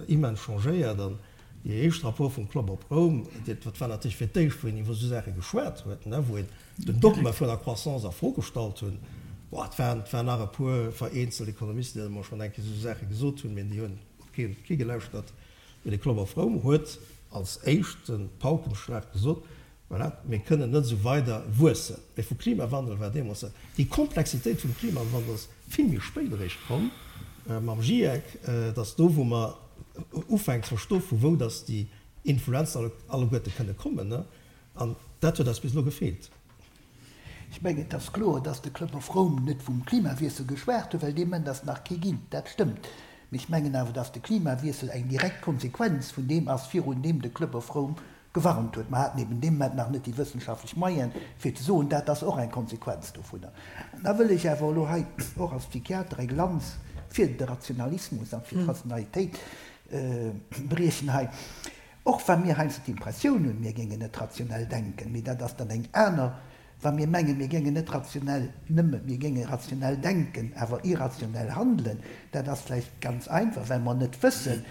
immens changéiert. An dee éischte Rapport vum Club of Rome, dat war natierlech fir d'éischt, wou een iwwer esou Saache geschwat huet, wou een den Dogma vun der Croissance a Fro gestallt hunn. Bon, et waren, et waren nach e puer vereenzelt Ekonomisten, déi emol schonn eng Kéier esou Saache gesot hunn, mee déi hunn op kee, kee gelauschtert. Mee de Club of Rome huet als éischte Paukenschlag gesot, Voilà, mir kënnen net esou weider wuessen. Mee vu Klimawandel war deemools net. Déi Komplexitéit vum Klimawandel ass vill méi spéit eréischt komm mam GIEC, dass do wou mer ufänken ze verstoen, vu wou dass déi Influenzen alleguerte kënne kommen. An dat huet eis bis elo gefeelt. Ech mengen, et ass kloer, dass de Club of Rome net vum Klimawiessel geschwat huet, well dee Moment ass nach kee ginn. Dat stëmmt. Mee ech mengen awer, dass de Klimawiessel eng direkt Konsequenz vun deem ass, virun deem de Club of Rome gewarnt huet. Mer haten eben dee Moment nach net déi wëssenschaftlech Moyene fir ze soen, dat ass och eng Konsequenz dovunner. An da wëll ech awer elo hei och als Psychiater eng Lanz fir de Rationalismus a fir d'Rationalitéit briechen hei, och wa mir heiansdo d'Impressioun hunn, mir géingen net rationell denken, mee dat ass dann eng aner Wa mir mengen, mir géingen net rationell, nëmme mir géinge rationell denken, awer irrationell handelen, dat ass vläicht ganz einfach, well mer net wëssen,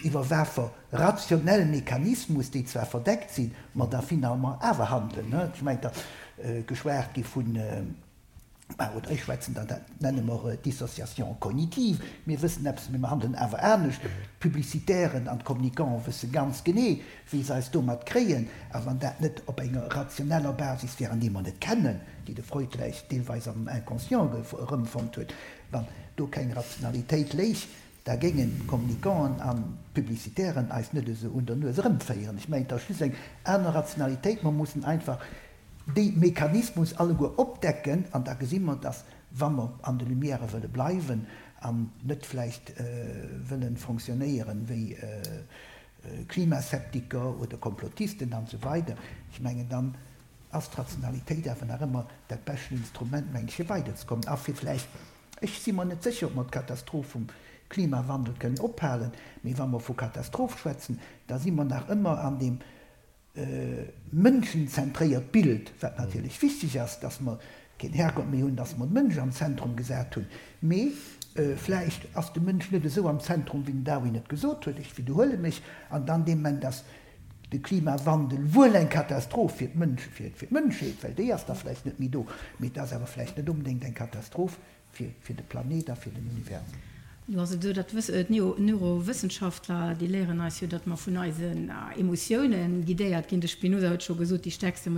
iwwer wafer rationell Mechanismus, déi zwar verdeckt sinn, mer da finalement awer handelen. Ech mengen, et ass geschwat gi vun, oder ech schwätzen dann, dat nenne mer Dissociation cognitive, mir wëssen eppes, mee mer handelen awer anescht. D'Publicitären an d'Communicants wësse ganz genee, wéi se eis domat kréien, a wann dat net op enger rationeller Basis wär, an déi mer net kennen, déi de Freud vläicht deelweis am Inconscient erëmfonnt huet, wann do keng Rationalitéit léich, da géingen d'Communicanten an d'Publicitären eis net esou un der Nues erëmféieren. Ech mengen, et ass just eng aner Rationalitéit, mer mussen einfach déi Mechanismus alleguer opdecken, an da gesi mer, dass, wa mer an de Lumièrë wëlle bleiwen an net vläicht wëlle fonctionnéieren wéi Klimaseptiker oder Komplottisten an esou weider, ech mengen, dann ass d'Rationalitéit awer nach ëmmer dat beschten Instrument, mengen ech, fir weiderzekommen a fir vläicht, ech si mer net sécher, ob mer d'Katastroph vum Klimawandel kënnen ophalen, mee wa mer vu Katastroph schwätzen, da si mer nach ëmmer an deem mënschenzentréiert Bild, wat natierlech wichteg ass, dass mer keen Herrgott méi hunn, dass mer de Mënsch am Zentrum gesat hunn, mee vläicht ass de Mënsch net esou am Zentrum, wéi den Darwin et gesot huet, ech widderhuele mech, an dann dee Moment ass de Klimawandel wuel eng Katastroph fir d'Mënsch, fir d'Mënschheet, well déi ass da vläicht net méi do, mee et ass awer vläicht net onbedéngt eng Katastroph Fir fir de Planet a fir den Universum. Jo, also do, dat wëss, d'Neurowëssenschaftler, déi léieren eis jo, datt mer vun eisen Emotioune guidéiert ginn. De Spinoza huet scho gesot, déi stäerkste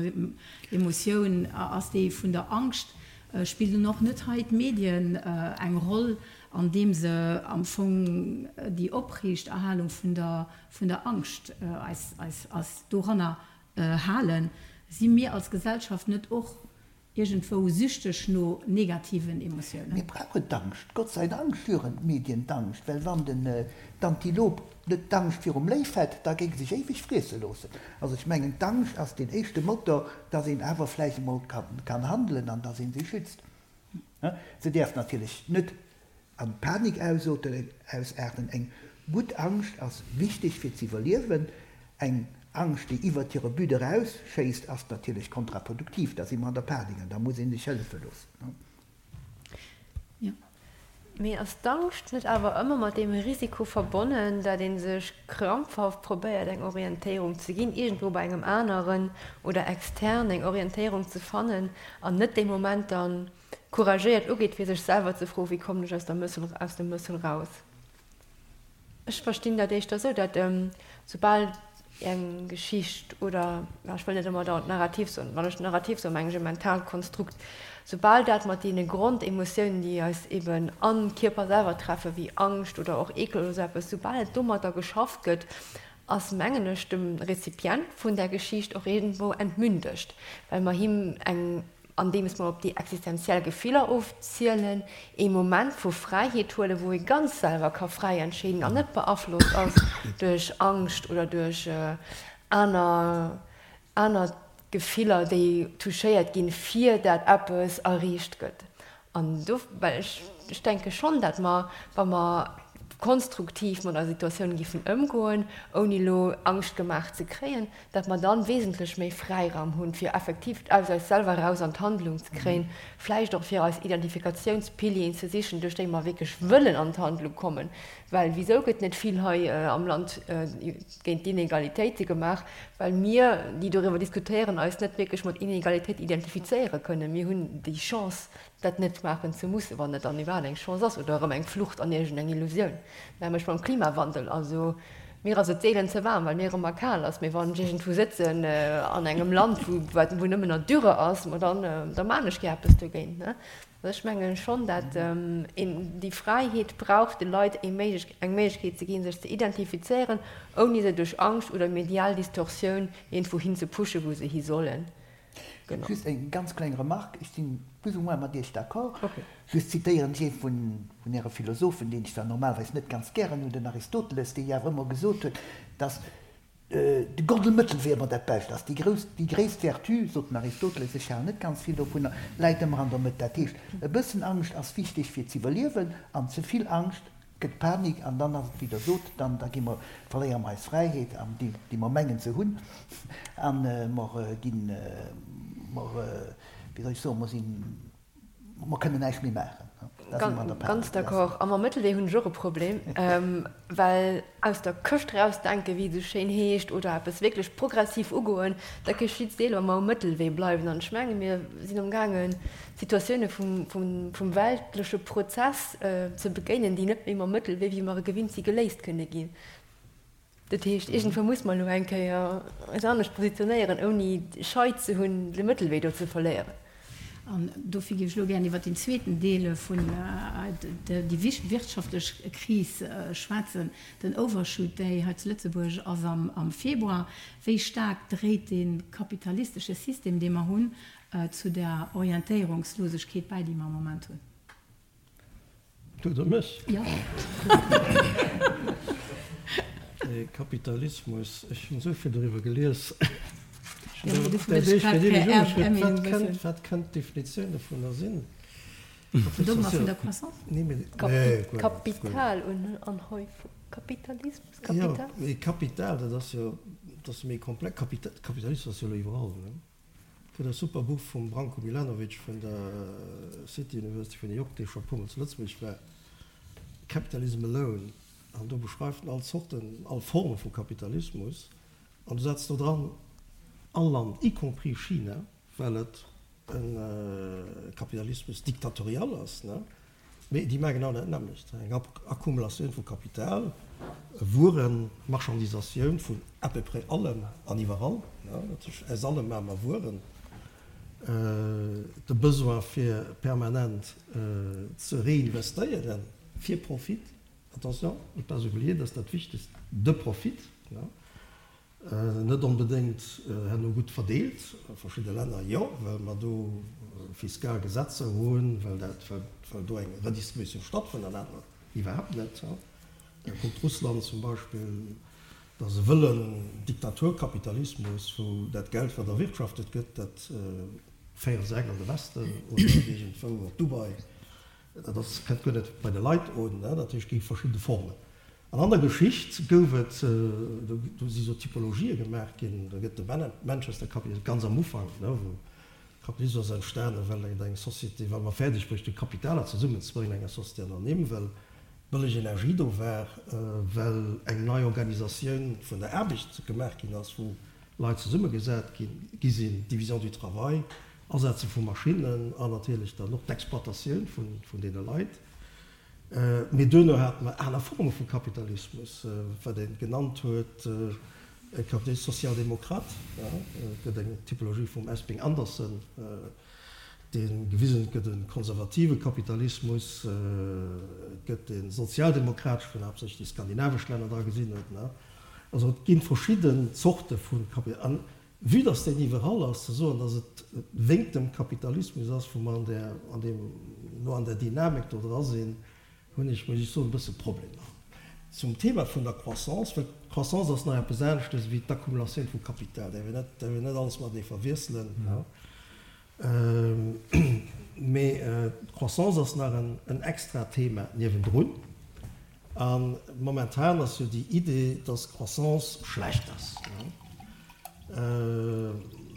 Emotioun ass déi vun der Angscht. Spillen nun och net hei d'Medien eng Roll, andeem se am Fong déi Opriichterhalung vun der, vun der Angscht eis, eis, eis doranner halen? Si mir als Gesellschaft net och Iergendwou süchteg no negativen Emotiounen. Mir brauchen d'Angscht. Gott sei Dank schüren d'Medien d'Angscht, well wann den d'Antilop net d'Angscht virum Léif hätt, da géing sech éiweg friesse loossen. Also ech mengen d'Angscht ass deen éischte Motor, dass een awer vläicht emol kann handelen an dass ee sech schützt. Se däerf natierlech net an Panik ausaarten. Eng gutt Angscht ass wichteg fir z'iwwerliewen. Eng. Angscht, déi iwwert hire But erausschéisst, ass natierlech kontraproduktiv. Da si mer an der Panik an da muss ee sech hëllefe loossen. Jo. Mee ass d'Angscht net awer ëmmer mat deem Risiko verbonnen, dat ee sech krampfhaft probéiert eng Orientéierung ze ginn, iergendwou bei engem aneren oder extern eng Orientéierung ze fannen an net dee Moment dann couragéiert ugeet fir sech selwer ze froen, wéi kommen ech aus der Mëssel, aus dem Mëssel raus? Ech verstinn dat éischter esou, datt soubal eng Geschicht oder, ech wëll net ëmmer dauernd Narrativ soen, wann ech Narrativ soen, mengen ech e mentaalt Konstrukt, soubal dat mat deene Grondemotiounen, déi eis eben am Kierper selwer treffen, wéi Angscht oder och Eekel oder esou eppes, soubal et domatter geschafft gëtt, ass, mengen ech, dem Rezipient vun där Geschicht och iergendwou entmündegt, well mer him eng andeems mer op déi existenziell Gefiller ofzielen, ee Moment vu Fräiheet huelen, wou ee ganz selwer ka fräi entscheeden an net beaflosst ass duerch Angscht oder duerch aner aner Gefiller, déi touchéiert ginn, fir dat eppes erreecht gëtt. An do, well ech, ech denke schonn, dat mer, wa mer konstruktiv mat eiser Situatioun giffen ëmgoen, ouni elo Angscht gemaach ze kréien, dat mer dann wesentlech méi Fräiraum hunn, fir effektiv aus eis selwer eraus an d'Handlung ze kréien, vläicht och fir eis Identifikatiounspilieren ze sichen, duerch déi mer wierklech wëllen an d'Handlung kommen. Well wisou gëtt net vill hei am Land géint d'Inegalitéite gemaach? Well mir, déi doriwwer diskutéieren, eis net wierklech mat Inegalitéit identifizéiere kënnen. Mir hunn déi Chance, dat net maachen ze mussen, wann et dann iwwerhaapt eng Chance ass, oder erëm eng Flucht an iergendeng Illusioun, nämlech mam Klimawandel. Also mir ass et seelen ze waarm, well mir ëmmer kal ass, mee wann ech iergendwou sëtzen an engem Land, wou wat wou nëmmen nach Dürre ass, ma dann da maan ech gär eppes dogéint, ne. Also ech mengen schonn, dat een déi Fräiheet brauch, de Leit eng Méiglech eng Méiglechkeet ze ginn, sech ze identifizéieren, ouni se duerch Angscht oder medial Distorsioun iergendwou hin ze pushen, wou se hi sollen. Genau. Just eng ganz kleng Remarque, ech sinn plus ou moins mat Iech d'accord. Just zitéieren ech ee vun Äre Philosophen, deen ech zwar normalerweis net ganz gären hunn, den Aristoteles, dee jo awer ëmmer gesot huet, dass de goldene Mëttelwee ëmmer dat Bescht ass. Déi grouss, déi gréisst Vertu, sot den Aristoteles, ech halen net ganz vill dovunner, läit ëmmer an der Mëtt. Dat heescht, e bëssen Angscht ass wichteg fir z'iwwerliewen an ze vill Angscht gëtt Panik an dann ass et wéi Der sot, dann da gi mer, verléiere mer eis Fräiheet an déi déi mer mengen ze hunn an mer ginn, mer, wéi soll ech soen, mer sinn, mer kënnen näischt méi maachen. Da si mer an der Panik. Ganz d'accord. A mam Mëttelwee hunn ech och e Problem, well aus der Këscht erausdenken, wéi et esou schéin heescht, oder eppes wierklech progressiv ugoen, dat geschitt seelen, wa mer um Mëttelwee bleiwen. An ech menge mir sinn amgaangen, Situatioune vum weltleche Prozess ze begéinen, déi net méi mam Mëttelwee, wéi mer e gewinnt si, geléist kënne ginn. Dat heescht, iergendwou muss mer elo eng Kéier eis anescht positionéieren, ouni Schei ze hunn, de Mëttelwee do ze verléieren. An dofir géif ech elo gären iwwert deen zweeten Deel vun déi wirtschaftlech Kris schwätzen, den Overshoot Day hei zu Lëtzebuerg ass am Februar. Wéi staark dréit dee kapitalistesche System, dee mer hunn, zu der Orientéierungslosegkeet bäi, déi mer am Moment hunn. Du oder mech? Jo. De Kapitalismus, ech hunn esou vill doriwwer gelies. Wat kënnt d'Definitioun dovunner sinn? Vun Dogma vun der Croissance? Kapitalanhäufung, Kapitalismus, Kapital? Jo, mee Kapital, dat ass jo, dat ass méi komplex. Kapitalismus ass jo elo iwwerall, ne? Et gëtt e super Buch vum Branko Milanovic vun der City University vun New York, dee scho e puermol zu Lëtzebuerg war, Capitalism Alone, an do beschreift en all Zorten, all Forme vu Kapitalismus an du setzt do dran all Land, y compris China, well et e Kapitalismus dictatorial ass, ne? Mee déi maachen genau dat nämmlecht, eng Akkumulatioun vu Kapital, Wueren, Marchandisatioun vun à peu près allem an iwwerall, dat heescht aus allem maache mer Wueren, de Besoin fir permanent ze reinvestéieren fir Profit, attention, ne pas oublier, dat ass dat Wichtegst, de Profit, Net onbedéngt herno gutt verdeelt, a verschidde Länner jo, well mer do fiskal Gesetzer hunn, well dat, well do eng Redistributioun stattfënnt, an anerer iwwerhaapt net. Kuckt Russland zum Beispill, dat ass e wëllen Diktaturkapitalismus, wou dat Geld, wat erwirtschaftet gëtt, dat féiere se eng an de Westen oder iergendwou op Dubai. Dat ass, kënnt guer net bei de Leit un. Dat heescht, et gi verschidde Formen. An an der Geschicht gouf et, do si sou Typologië gemaach ginn, do gëtt de Manchester Kapitalismus ganz am Ufank, wou Kapitalismus ass entstanen, well et eng Société, well mer fäerdeg bruecht hunn, Kapitaler zesummenzebréngen an enger Société anonyme, well bëlleg Energie do war, well eng nei Organisatioun vun der Aarbecht gemaach ginn ass, wou Leit zesummegesat gi sinn, Division du travail, Asetze vu Maschinnen an natierlech dann och d'Exploitatioun vun deene Leit. Mee duerno hate mer aner Forme vu Kapitalismus, wat ee genannt huet e Capitalisme social-démocrate. Et gëtt eng Typologie vum Esping Andersen, dee gewisen huet, et gëtt e konservative Kapitalismus, et gëtt e sozialdemokrateschen, wou haaptsächlech déi skandinavesch Länner dra gesinn huet. Also et gi verschidden Zorte vu Kapitalismus. Vue dass deen iwwerall ass, ze soen, dass et wéngt dem Kapitalismus ass, wou mer an där, an deem, elo an där Dynamik do dra sinn, hunn ech, muss ech soen, e bësse Problemer. Zum Thema vun der Croissance, well d'Croissance ass nach eppes aneschtes wéi d'Accumulatioun vu Kapital, däerf een net, däerf een net alles matenee verwiesselen. Mee d'Croissance ass nach en extra Thema niewendrun. A momentan ass jo déi Idee, dass Croissance schlecht ass,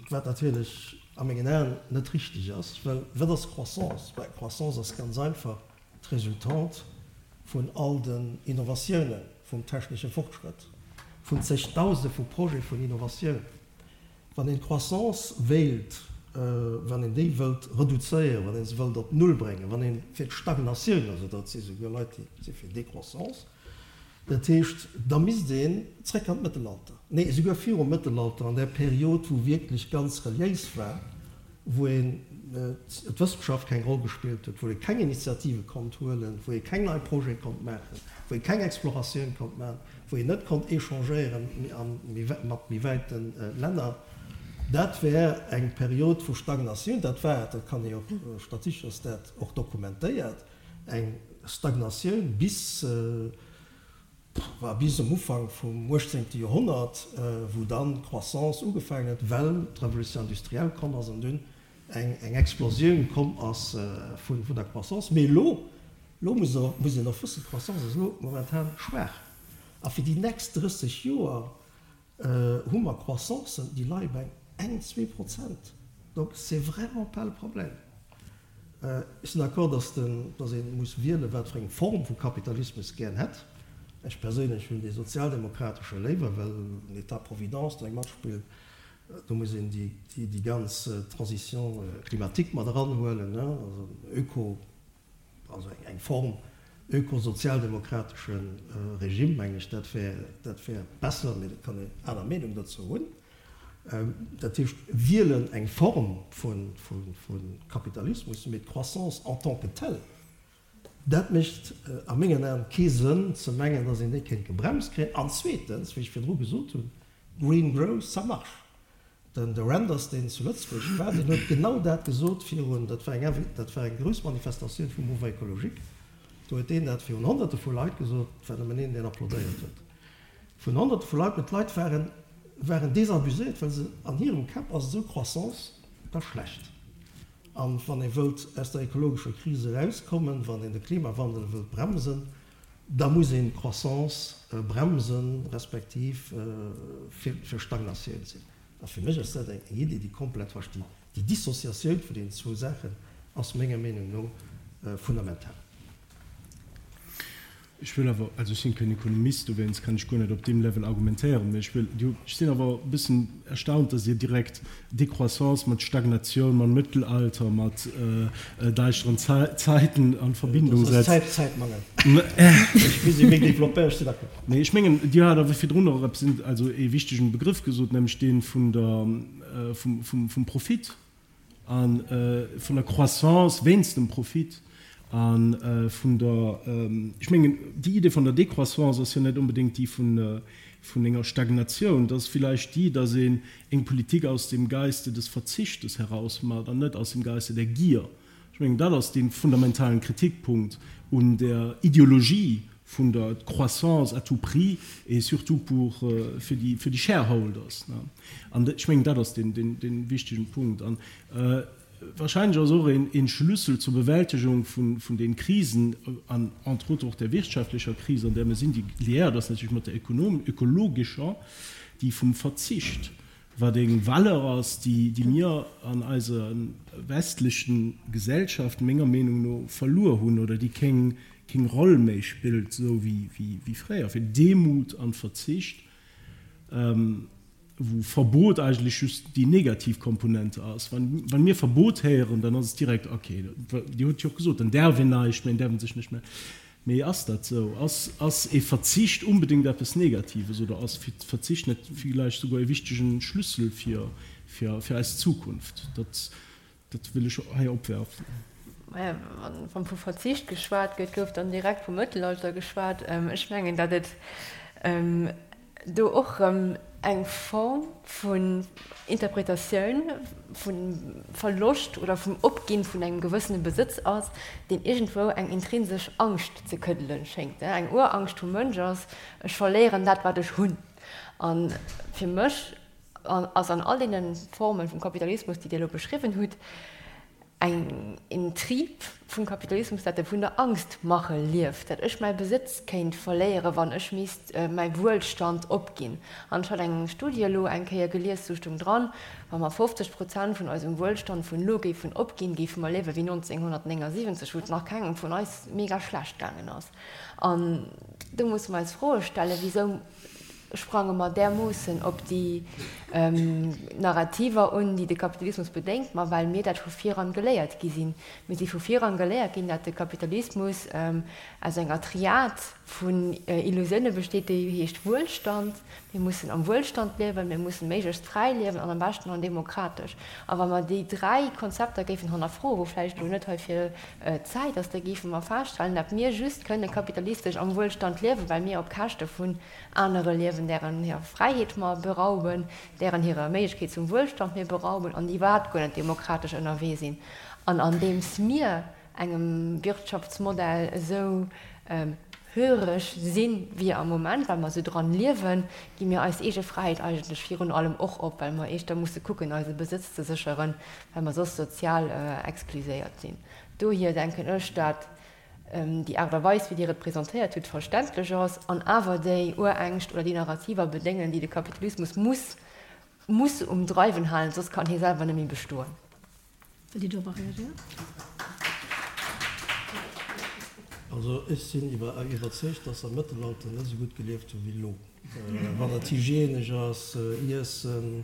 wat natierlech a mengen Aen net richteg ass. Well wat ass Croissance? Bah, Croissance ass ganz einfach d'Resultante vun all den Innovatiounen, vum technesche Fortschrëtt, vun zegdausende vu Projete vun Innovatioun. Wann een d'Croissance wéilt, wann een déi wëllt reduzéieren, wann ee se wëllt op Null bréngen, wann ee fir d'Stagnatioun ass, oder et si souguer Leit, déi si fir Décroissance, dat heescht, da misst een zréck an d'Mëttelalter, nee, esouguer virum Mëttelalter, an där Period, wou wierklech ganz reliéis war, wou een d'Wëssenschaft keng Roll gespillt huet, wou ee keng Initiative konnt huelen, wou ee keng nei Projete konnt maachen, wou ee keng Exploratioun konnt maachen, wou een net konnt échangéieren mat méi wäite Länner. Dat wär eng Period vu Stagnatioun. Dat war, dat kann ee och, statistesch ass dat och dokumentéiert, eng Stagnatioun bis, War bis um Ufank vum 18. Joerhonnert, wou dann d'Croissance ugefaangen huet, well d'Revolution industrielle komm ass an dunn eng Explosioun komm ass vun der Croissance. Mee elo, elo muss een och wëssen, d'Croissance ass elo momentan schwaach. A fir déi nächst 30 Joer hu mer Croissancen, déi leie bei eng, 2%. Donc c'est vraiment pas le problème. Ech sinn d'accord, dass den, dass ee muss wielen, wat fir eng Form vu Kapitalismus gären hätt. Ech perséinlech hunn dee sozialdemokratesche léiwer, well den État-providence do eng matspillt. Do muss een déi, déi ganz Transition climatique mat eranhuelen, also Öko, also eng Form ökosozialdemokratesche Regime, mengen ech, dat wär, dat wär besser, mee dat kann een aner Meenung dozou hunn. Dat heescht, wielen eng Form vu Kapitalismus, mee d'Croissance en tant que telle, dat mécht a mengen Aen kee Sënn ze mengen, datt een déi kéint gebremst kréien. An zweetens, wéi ech virdru gesot hunn, Green growth, ça marche. Den de Reynders, deen zu Lëtzebuerg war, deen huet genau dat gesot virun, dat war eng, dat war eng grouss Manifestatioun vum Mouvement écologique, do huet deen dat virun Honnerte vu Leit gesot, et war nëmmen een, deen applaudéiert huet, vun Honnerte vu Leit, mä d'Leit waren, waren désabuséiert, well se, an hirem Käpp ass esou Croissance da schlecht. An wann ee wëllt aus der ekologescher Kris erauskommen, wann een de Klimawandel wëllt bremsen, Da muss een d'Croissance bremsen, respektiv fir Stagnatioun sinn. A fir mech ass dat eng Idee, déi komplett falsch. Déi Dissociatioun vun deenen zwou Saachen ass menger Meenung no fundamental. Ech wëll awer, also ech sinn keen Ekonomist, dowéinst kann ech guer net op deem Level argumentéieren, mä ech wëll, ech sinn awer e bëssen erstaunt, dass Dir direkt Décroissance mat Stagnatioun, mam Mëttelalter, mat däischteren Zäiten an Verbindung setzt. Dat ass Zäitmangel. Ech misst méi développéieren, ech sinn d'accord. Nee, ech mengen, Dir hat awer virdrun och eppes, also ee wichtegen Begrëff gesot, nämlech dee vun der, vum Profit a vun der Croissance wéinst dem Profit a vun der, ech mengen, déi Idee vun der Décroissance ass jo net onbedéngt déi vun enger Stagnatioun, dat ass villäicht déi, datt een eng Politik aus dem Geiste des Verzichtes heraus macht an net aus dem Geiste der Gier. Ech mengen, dat ass dee fundamentalen Kritikpunkt un der Ideologie vun der Croissance à tout prix et surtout pour, fir déi, fir déi Shareholders. An ech mengen, dat ass deen, deen, dee wichtegen Punkt. An. Wahrscheinlech ass och een Schlüssel zur Bewältegung vun den Krisen, an entre autres och der wirtschaftlecher Kris, an där mir sinn, déi liéiert ass natierlech mat der ökologescher, déi vum Verzicht, wat eng Valeur ass, déi mir an eiser westlechen Gesellschaft menger Meenung no verluer hunn oder déi keng Roll méi spillt esou wéi fréier, fir Demut an Verzicht. Wou Verbot eigentlech just déi negativ Komponente ass. Wann mir Verbot héieren, dann ass et direkt, okay, Dir hutt jo och gesot, dann däerf een näischt méi, dann däerf een sech näischt méi. Mee ass dat esou? Ass, ass ee Verzicht unbedéngt eppes Negatives oder ass Verzicht net villäicht souguer e wichtegen Schlüssel fir, fir, fir eis Zukunft? Dat, Dat wëll ech hei opwerfen. Maja, wann vu Verzicht geschwat gëtt, gouf dann direkt vum Mëttelalter geschwat. Ech mengen, datt et do och erëm eng Form vun Interpretatioun vum Verloscht oder vum Opginn vun engem gewëssene Besëtz ass, deen iergendwou eng intrinsesch Angscht ze këddelen schéngt. Eng Urangscht vum Mënsch ass, ech verléieren dat, wat ech hunn. A fir mech ass an all deene Formen vum Kapitalismus, déi Dir elo beschriwwen hutt, eng een Trib vum Kapitalismus, dat e vun der Angstmache lieft, dat ech mäi Besëtz kéint verléieren, wann ech misst mäi Wuelstand opginn. An ech hat eng Studie elo eng Kéier gelies, do stoung dran, wa mer 50 Prozent vun eisem Wuelstand vun elo géifen opginn, géife mer liewe wéi 1979, wou et nach kengem vun eis mega schlecht gaangen ass. An do musse mer eis Froe stellen, Wisou sprange mer därmoossen op déi Narrativer un, déi de Kapitalismus bedéngt? Ma well mir dat vu viran geléiert gi sinn. Mir si vu viran geléiert ginn, dat de Kapitalismus aus enger Triad vun Illusioune besteet, déi heescht Wuelstand. Mir mussen am Wuelstand liewen, mir mussen méiglechst fräi liewen an am beschten an demokratesch. A wa mer déi dräi Konzepter géifen hannerfroen, wou vläicht elo net heifir d'Zäit ass, da géife mer feststellen, dat mir just kënne kapitalistesch am Wuelstand liewen, well mir op Käschte vun anere liewen, dären hirer Fräiheet mer berauben, dären hirer Méiglechkeet zum Wuelstand mir berauben an déi iwwerhaapt guer net demokratesch ënnerwee sinn. An andeems mir engem Wirtschaftsmodell esou höreg sinn, wéi am Moment, well mer esou dran liewen, gi mir eis eege Fräiheet eigentlech virun allem och op, well mer éischter musse kucken, eise Besëtz ze sécheren, well mer soss sozial exkluséiert sinn. Dohier denken ech, dat déi Aart a Weis, wéi Dir et presentéiert hutt, verständlech ass an awer déi Urängscht oder déi Narrativer bedéngen, déi de Kapitalismus muss muss um Dreiwen halen, soss kann hie selwer net méi bestoen. Wëllt Dir dorobber reagéieren? Also ech sinn iwwerzeegt, dass se am Mëttelalter net esou gutt gelieft hu wéi elo, wann et hygienesch ass, Iessen,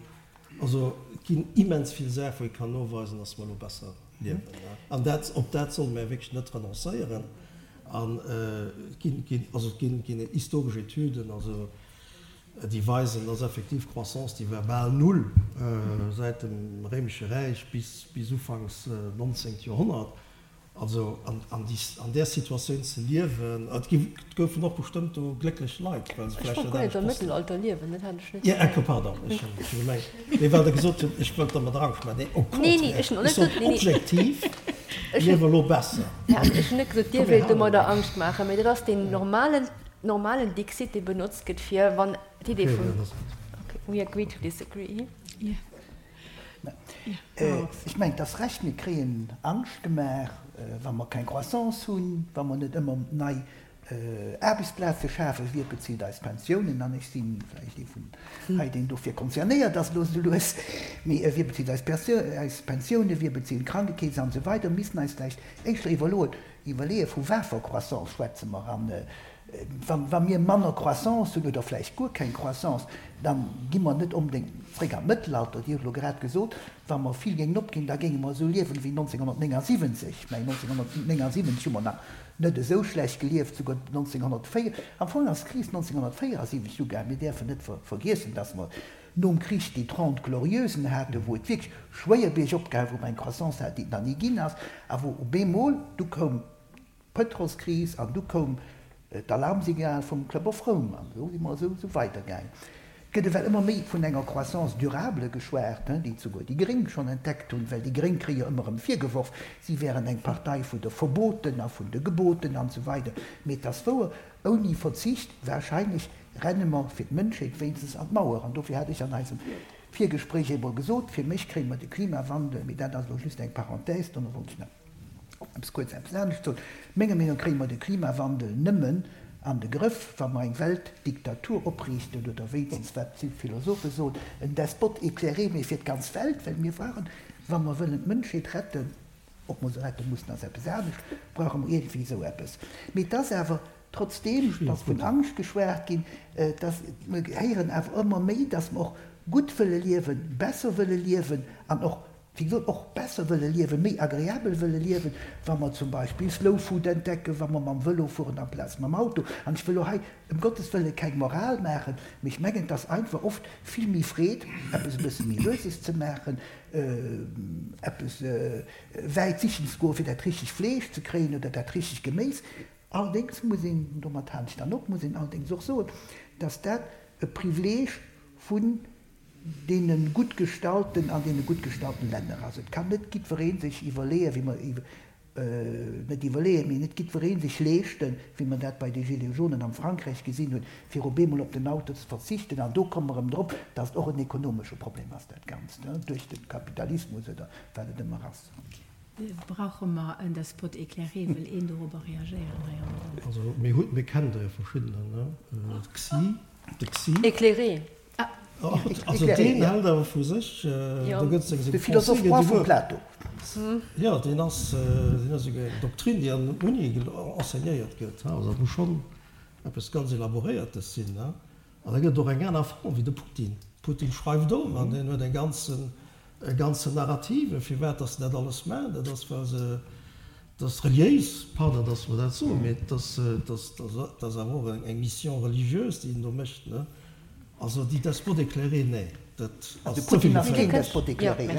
Also et ginn immens vill Saachen, wou ee kann noweisen, dass mer elo besser liewen. An dat, op dat solle mer wierklech net renoncéieren. An et ginn, ginn, also et ginn, ginn historesch Etüden, also déi weisen, dass effektiv d'Croissance, déi war bal null säit dem Réimesche Räich bis, bis ufanks 19. Joerhonnert. Also an där Situatioun ze liewen, et goufen och bestëmmt do glécklech Leit, well se vläicht net anescht wossten. Ech wollt guer net am Mëttelalter liewen, dat hat ech net gemengt. Jo, pardon, ech hunn gemengt, mee well Der gesot hutt, ech wëllt dermat Angscht maachen. Nee, au contraire, ech sot objektiv liewe mer elo besser. Ech hunn net gesot, Dir wéilt domadder Angscht maachen, mee dat ass deen normalen, normalen Dixit, dee benotzt gëtt fir wann d'Idee vun, okay, we agree to disagree. Ech mengen, et ass Recht, mir kréien Angscht gemaach, wa mer keng Croissance hunn, wa mer net ëmmer nei Aarbechtsplaze schafen, wie bezilt eis Pensiounen? An ech si vläicht ee vun hei, deen dofir concernéiert ass elo esou lues. Mee wie bezilt eis Pensiounen, wie bezilt d'Krankekeess an esou weider? Mir missten eis vläicht éischter iwwerloen, iwwerleeën, vu wafer Croissance schwätze mer an Wa mir manner Croissance hunn oder vläicht guer keng Croissance, da gi mer net onbedéngt zréck an d'Mëttelalter. Dir hutt elo grad gesot, wa mer vill géingen opginn, da géinge mer esou liewen wéi 1979. Mä 1979 hu mer nach net esou schlecht gelieft, souguer 1904, am Fong ass d'Kris 1974 ugaangen. Mir däerfen net vergiessen, dass mer nom Krich déi Trente Glorieusen haten, wou et wierklech schwéier biergop gaang, wou mer eng Croissance haten, déi et nach ni ginn ass, a wou op eemol du koum, Pëtrolskris an du koum d'Alarmsignal vum Club of Rome an esou si mer esou weidergaangen. Et gëtt ewell ëmmer méi vun enger Croissance durable geschwat, déi souguer déi Gréng schonn entdeckt hunn, well déi Gréng kréie jo ëmmer erëm virgeworf, si wären eng Partei vun de Verboten a vun de Geboten an esou weider. Mee et ass wouer, ouni Verzicht wahrscheinlech renne mer fir d'Mënschheet wéinstens an d'Mauer an dofir hat ech an eisem. Virgespréich eemol gesot, fir mech kréie mer de Klimawandel, mee dat ass elo just eng Parenthèse, dono wollt ech nach eppes kuerz eppes anescht soen, menger Meenung no kréie mer de Klimawandel nëmmen an de Grëff, wa mer eng Weltdiktatur opriichten, oder wéinstens, wat d'Philosophe soen, en Despote éclairé, mee fir d'ganz Welt, well mir brauchen, wa mer wëllen d'Mënschheet retten, ob mer se rette mussen, ass eppes anescht, brauche mer iergendwéi esou eppes. Mee et ass awer, trotzdeem, dass vun Angscht geschwat ginn, dass mer héieren awer ëmmer méi, dass mer och gutt wëlle liewen, besser wëlle liewen an och, wéi gesot, och besser wëlle liewen, méi agreabel wëlle liewen, wa mer zum Beispill Slow Food entdecken, wa mer mam Vëlo fueren amplaz mam Auto. An ech wëll elo hei ëm Gottes Wëlle keng Moral maachen, mee ech mengen, et ass einfach oft vill méi Freed, eppes e bësse méi Lueses ze maachen, eppes wäit sichen ze goen, fir dat richtegt Fleesch ze kréien oder dat richtegt Geméis. Allerdéngs muss een, an domat halen ech dann op, muss een allerdéngs och soen, dass dat e Privileeg vun deene gutt gestallten an deene gutt gestallten Länner ass. Et kann net jiddweree sech iwwerleeën, wéi mer, net iwwerleeën, mee net jiddweree sech leeschten, wéi mer dat bei de Gilets jaunen am Frankräich gesinn hunn, fir op eemol op den Auto ze verzichten. An do komme mer erëm drop, dass et och en ekonomesche Problem ass, dat Ganzt, duerch de Kapitalismus oder wat et ëmmer ass. Brauche mer en Despot éclairé? Wëll een dorobber reagéieren hei am Raum? Also mir hunn, mir kennen der jo verschiddener, ne? Xi, de Xi. Éclairé. Also deen hält awer vu sech, do gëtt seng De Philosophe roi vum Plato. Jo, deen ass, deen ass esouguer eng Doktrin, déi an der Uni enseignéiert gëtt. Also dat muss schonn eppes ganz Elaboréiertes sinn, ne? An da gëtt et och eng aner Form wéi de Putin. Putin schreift och an deen huet eng ganzen, e ganzen Narrative firwat datt en dat alles maacht. Dat ass well se, dat ass reliéis, pardon datt mer dat soen, mee dat ass, dat ass awer och eng Mission religieuse déi en do mécht, ne. Also déi Despote éclairé, nee, dat ass ze vill geféierlech.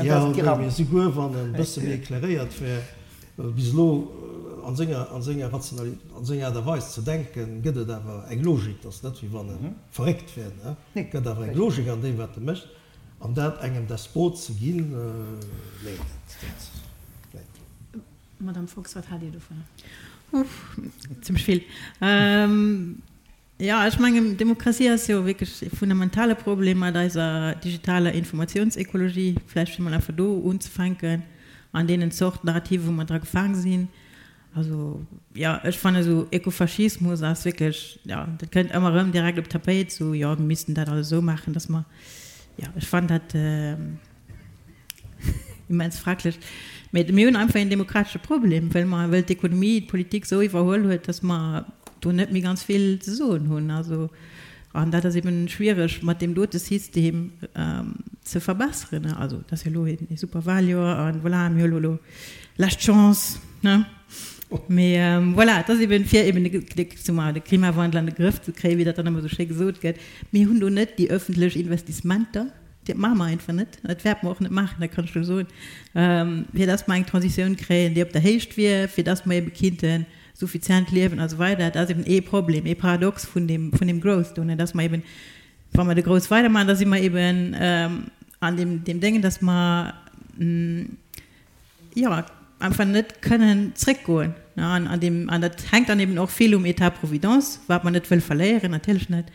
Jo, nee, mee souguer wann en e bësse méi éclairéiert wär, well bis elo an senger, an senger Rationali, an senger Aart a Weis ze denken, gëtt et awer eng Logik, dat ass net wéi wann e verréckt wär, ne, gëtt awer eng Logik an deem wat e mécht, an dat engem Despot ze ginn, nee, dat, dat, nee. Madame Fox, wat haalt Dir dovunner? Uff, zimmlech vill. Jo, ech mengen, Demokratie ass jo wierklech e fundamentale Problem mat eiser digitaler Informatiounsekologie, vläicht fir mol einfach do unzefänken, an deenen Zort Narrative wou mer dra gefaang sinn. Also, jo, ech fannen esou Ökofaschismus ass wierklech, jo, dat kënnt ëmmer erëm direkt op d'Tapéit, esou, jo, mir missten dat alles esou maachen, dass mer, jo, ech fannen dat. Immens fraglech. Mee mir hunn einfach een demokratesche Problem, well mer, well d'Ekonomie d'Politik esou iwwerhuel huet, datt mer do net méi ganz vill ze soen hunn. Also, an dat ass eben schwiereg mat deem dote System ze verbesseren. Also, et ass jo elo ee super Wahljoer a voilà, mir hu elo lescht Chance, ne? Mee voilà, et ass eben, fir eben de, soe mer, de Klimawandel an de Grëff ze kréien, wéi dat dann ëmmer esou schéi gesot gëtt, mir hunn do net déi öffentlech Investissementer, Dat maache mer einfach net. Dat wäerte mer och net maachen, dat kann ech elo soen, fir dass mer eng Transitioun kréien, déi op der Héicht wier, fir dass mer ebe kinnte suffizient liewen a sou weider. Dat ass eben ee Problem, ee Paradox vun deem, vun deem Growth do, dass mer eben, wa mer de Growth weidermaachen, da si mer eben an deem, deem Déngen, dass mer, jo, einfach net kënnen zréckgoen. An, an deem, an dat hänkt dann eben och vill um État providence, wat mer net wëlle verléieren, natierlech net.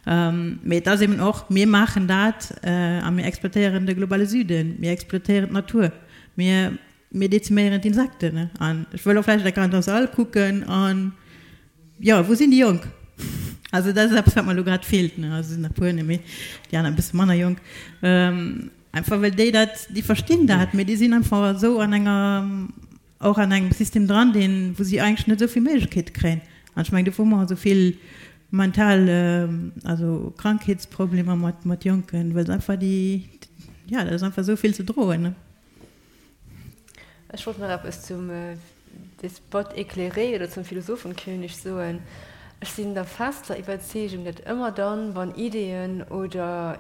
Mee et ass eben och, mir maachen dat a mir exploitéieren de globale Süden, mir exploitéieren d'Natur, mir, mir deziméieren d'Insekten. An ech wëll och vläicht eng Kéier an der Sall kucken an, jo, wou sinn déi Jonk? Also dat ass eppes, wat mer elo grad feelt. Also sinn der e puer, mee déi aner e bësse manner jonk. Einfach well déi dat, déi verstinn dat, mee déi sinn einfach esou an enger, och an engem System dran, deen, wou si eigentlech net esou vill Méiglechkeete kréien. An ech mengen, dofir hu mer och esou vill mental, also Krankheetsproblemer mat, mat Jonken, well se einfach déi, jo, dat ass einfach esou vill ze droen. Ech wollt nach eppes zum Despote éclairé oder zum Philosophenkönig soen. Ech sinn der fester Iwwerzeegung, datt ëmmer dann, wann Ideeën oder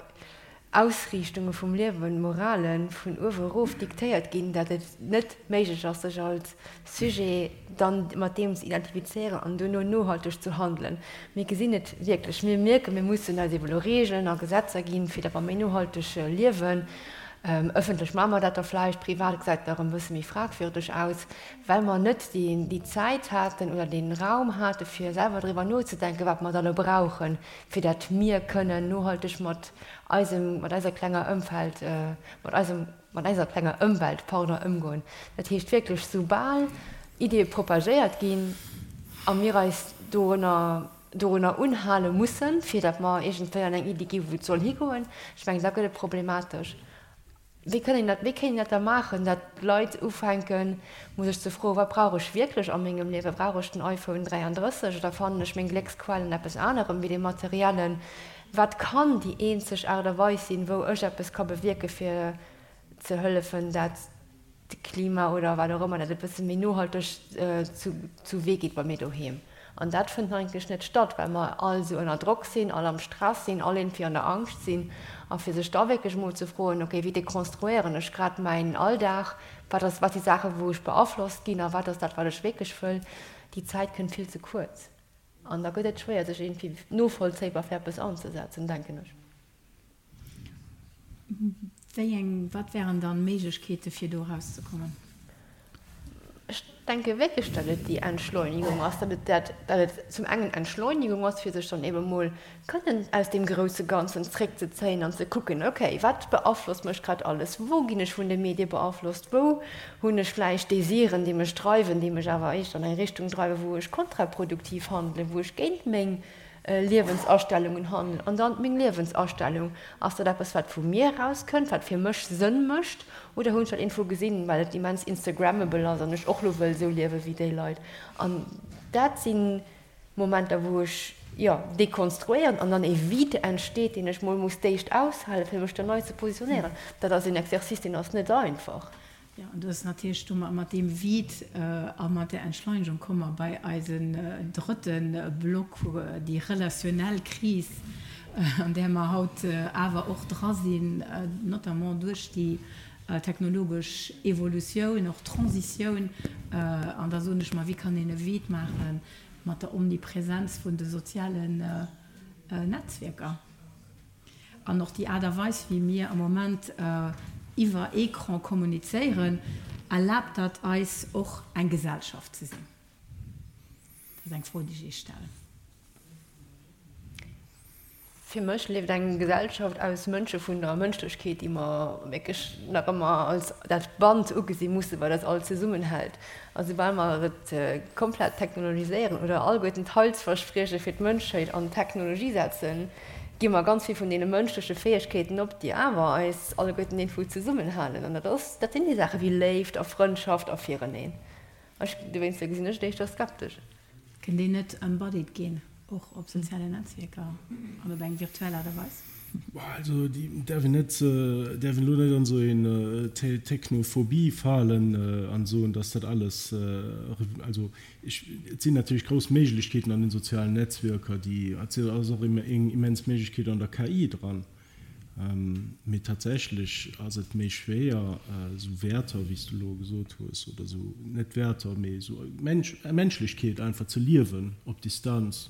Ausriichtunge vum Liewen, Morale vun uewe erof diktéiert ginn, datt et net méiglech ass, sech als Sujet dann mat deem ze identifizéieren an duerno nohalteg ze handelen. Mir gesinn et wierklech, mir mierken, mir mussen eis ebe lo Regeln a Gesetzer ginn, fir datt mer méi nohalteg liewen. Ëffentlech maache mer dat da vläicht, privat gesäit et nach e bësse méi fragwürdeg aus, well mer net déi Zäit haten oder dee Raum hate fir selwer driwwer nozedenken, wat mer da elo brauchen, fir dat mir kënnen nohalteg mat eisem, mat eiser klenger Ëmfeld, mat eisem, mat eiser klenger Ëmwelt, pardon, ëmgoen. Dat heescht wierklech, soubal Ideeë propagéiert ginn a mir eis dorunner, dorunner unhale mussen, fir datt mer iergendwéi an eng Iddi gi wou et soll higoen, ech mengen, da gëtt et problematesch. Wéi kënn een dat, wéi kéint een dat da maachen, datt d'Leit ufänken, mol sech ze froen, Wat brauch ech wierklech a mengem Liewen? Brauch ech den iPhone 33 oder fannen ech meng Glécksquell an eppes anerem wéi dem Materiellen? Wat kann déi eenzeg Aart a Weis sinn, wou ech eppes ka bewierken, fir ze hëllefen, dat d'Klima oder wat och ëmmer, dat et e bësse méi nohalteg zu Wee geet bei mir doheem. An dat fënnt eigentlech net statt, well mer all esou ënner Drock sinn, all am Stress sinn, all iergendwéi an der Angscht sinn. A fir sech da wierklech emol ze froen, okay, wéi dekonstruéieren ech grad mäin Alldag, wat ass, wat si Saachen, wou ech beaflosst ginn a wat ass dat, wat ech wierklech wëll, déi Zäit kënnt vill ze kuerz. An da gëtt et schwéier, sech iergendwéi novollzéibar fir eppes anzesetzen, denken ech. Wéi eng, wat wären dann Méiglechkeete fir do erauszekommen? Ech denke wierklech, datt et déi Entschleunigung ass, datt et dat, datt et zum engen Entschleunigung ass, fir sech dann ebe mol kënnen aus deem grousse Ganzen zréckzezéien an ze kucken, okay, wat beaflosst mech grad alles, wou ginn ech vun de Medie beaflosst, wou hunn ech vläicht Desiren, déi mech dreiwen, déi mech awer éischter an eng Richtung dreiwen, wou ech kontraproduktiv handelen, wou ech géint meng Liewensastellungen handelen. An dann meng Liewensastellung, ass dat eppes wat vu mir erauskënnt, wat fir mech Sënn mécht, oder hunn ech dat iergendwou gesinn, well et immens instagrammable ass an ech och lo wëll esou liewe wéi déi Leit. An dat si Momenter wou ech, jo, dekonstruéieren an dann e Vide entsteet, deen ech mol muss d'éischt aushalen, fir mech dann nei ze positionéieren. Dat ass een Exercice, deen ass net einfach. Jo, an do ass natierlech do mat deem Vide a mat där Entschleunegung komme mer bei eisen drëtte Block, déi relationell Kris, an där mer haut awer och dra sinn, notamment duerch déi technologesch Evolutioun, och Transitioun. An da soen ech mer, wéi kann een e Vide maache mat der Omnipresenz vun de sozialen Netzwierker? An och déi Aart a Weis, wéi mir am Moment iwwer Ecran kommunizéieren, erlaabt dat eis och eng Gesellschaft ze sinn? Dat ass eng Fro, déi ech Iech stellen. Fir mech lieft eng Gesellschaft aus Mënsche vun der Mënschlechkeet, déi mer wierklech nach ëmmer als dat Band ugesi mussen, wat eis all zesummenhält. A soubal mer et komplett technologiséieren oder alleguerten d'Heilsversprieche fir d'Mënschheet an d'Technologie setzen, gi mer ganz vill vun deene mënschleche Fäegkeeten op, déi awer eis alleguerten iergendwou zesummenhalen. An dat ass, dat sinn déi Saache wéi Léift a Frëndschaft a Fireneen. Ech, dowéinster gesinn ech et éischter skeptesch. Kënnt een net embodied ginn, och op sozialen Netzwierker an op eng virtuell Aart a Weis? Also déi däerf een net, däerf een elo net an esou een Technophobie falen an soen, datt dat alles, also Ech, et sinn natierlech grouss Méiglechkeeten an den sozialen Netzwierker, déi, et ass och eng immens Méiglechkeet an der KI dran, mee tatsächlech ass et méi schwéier, esou Wäerter, wéi s du elo gesot hues, oder esou, net Wäerter, mee esou Mensch, Menschlechkeet einfach ze liewen op Distanz.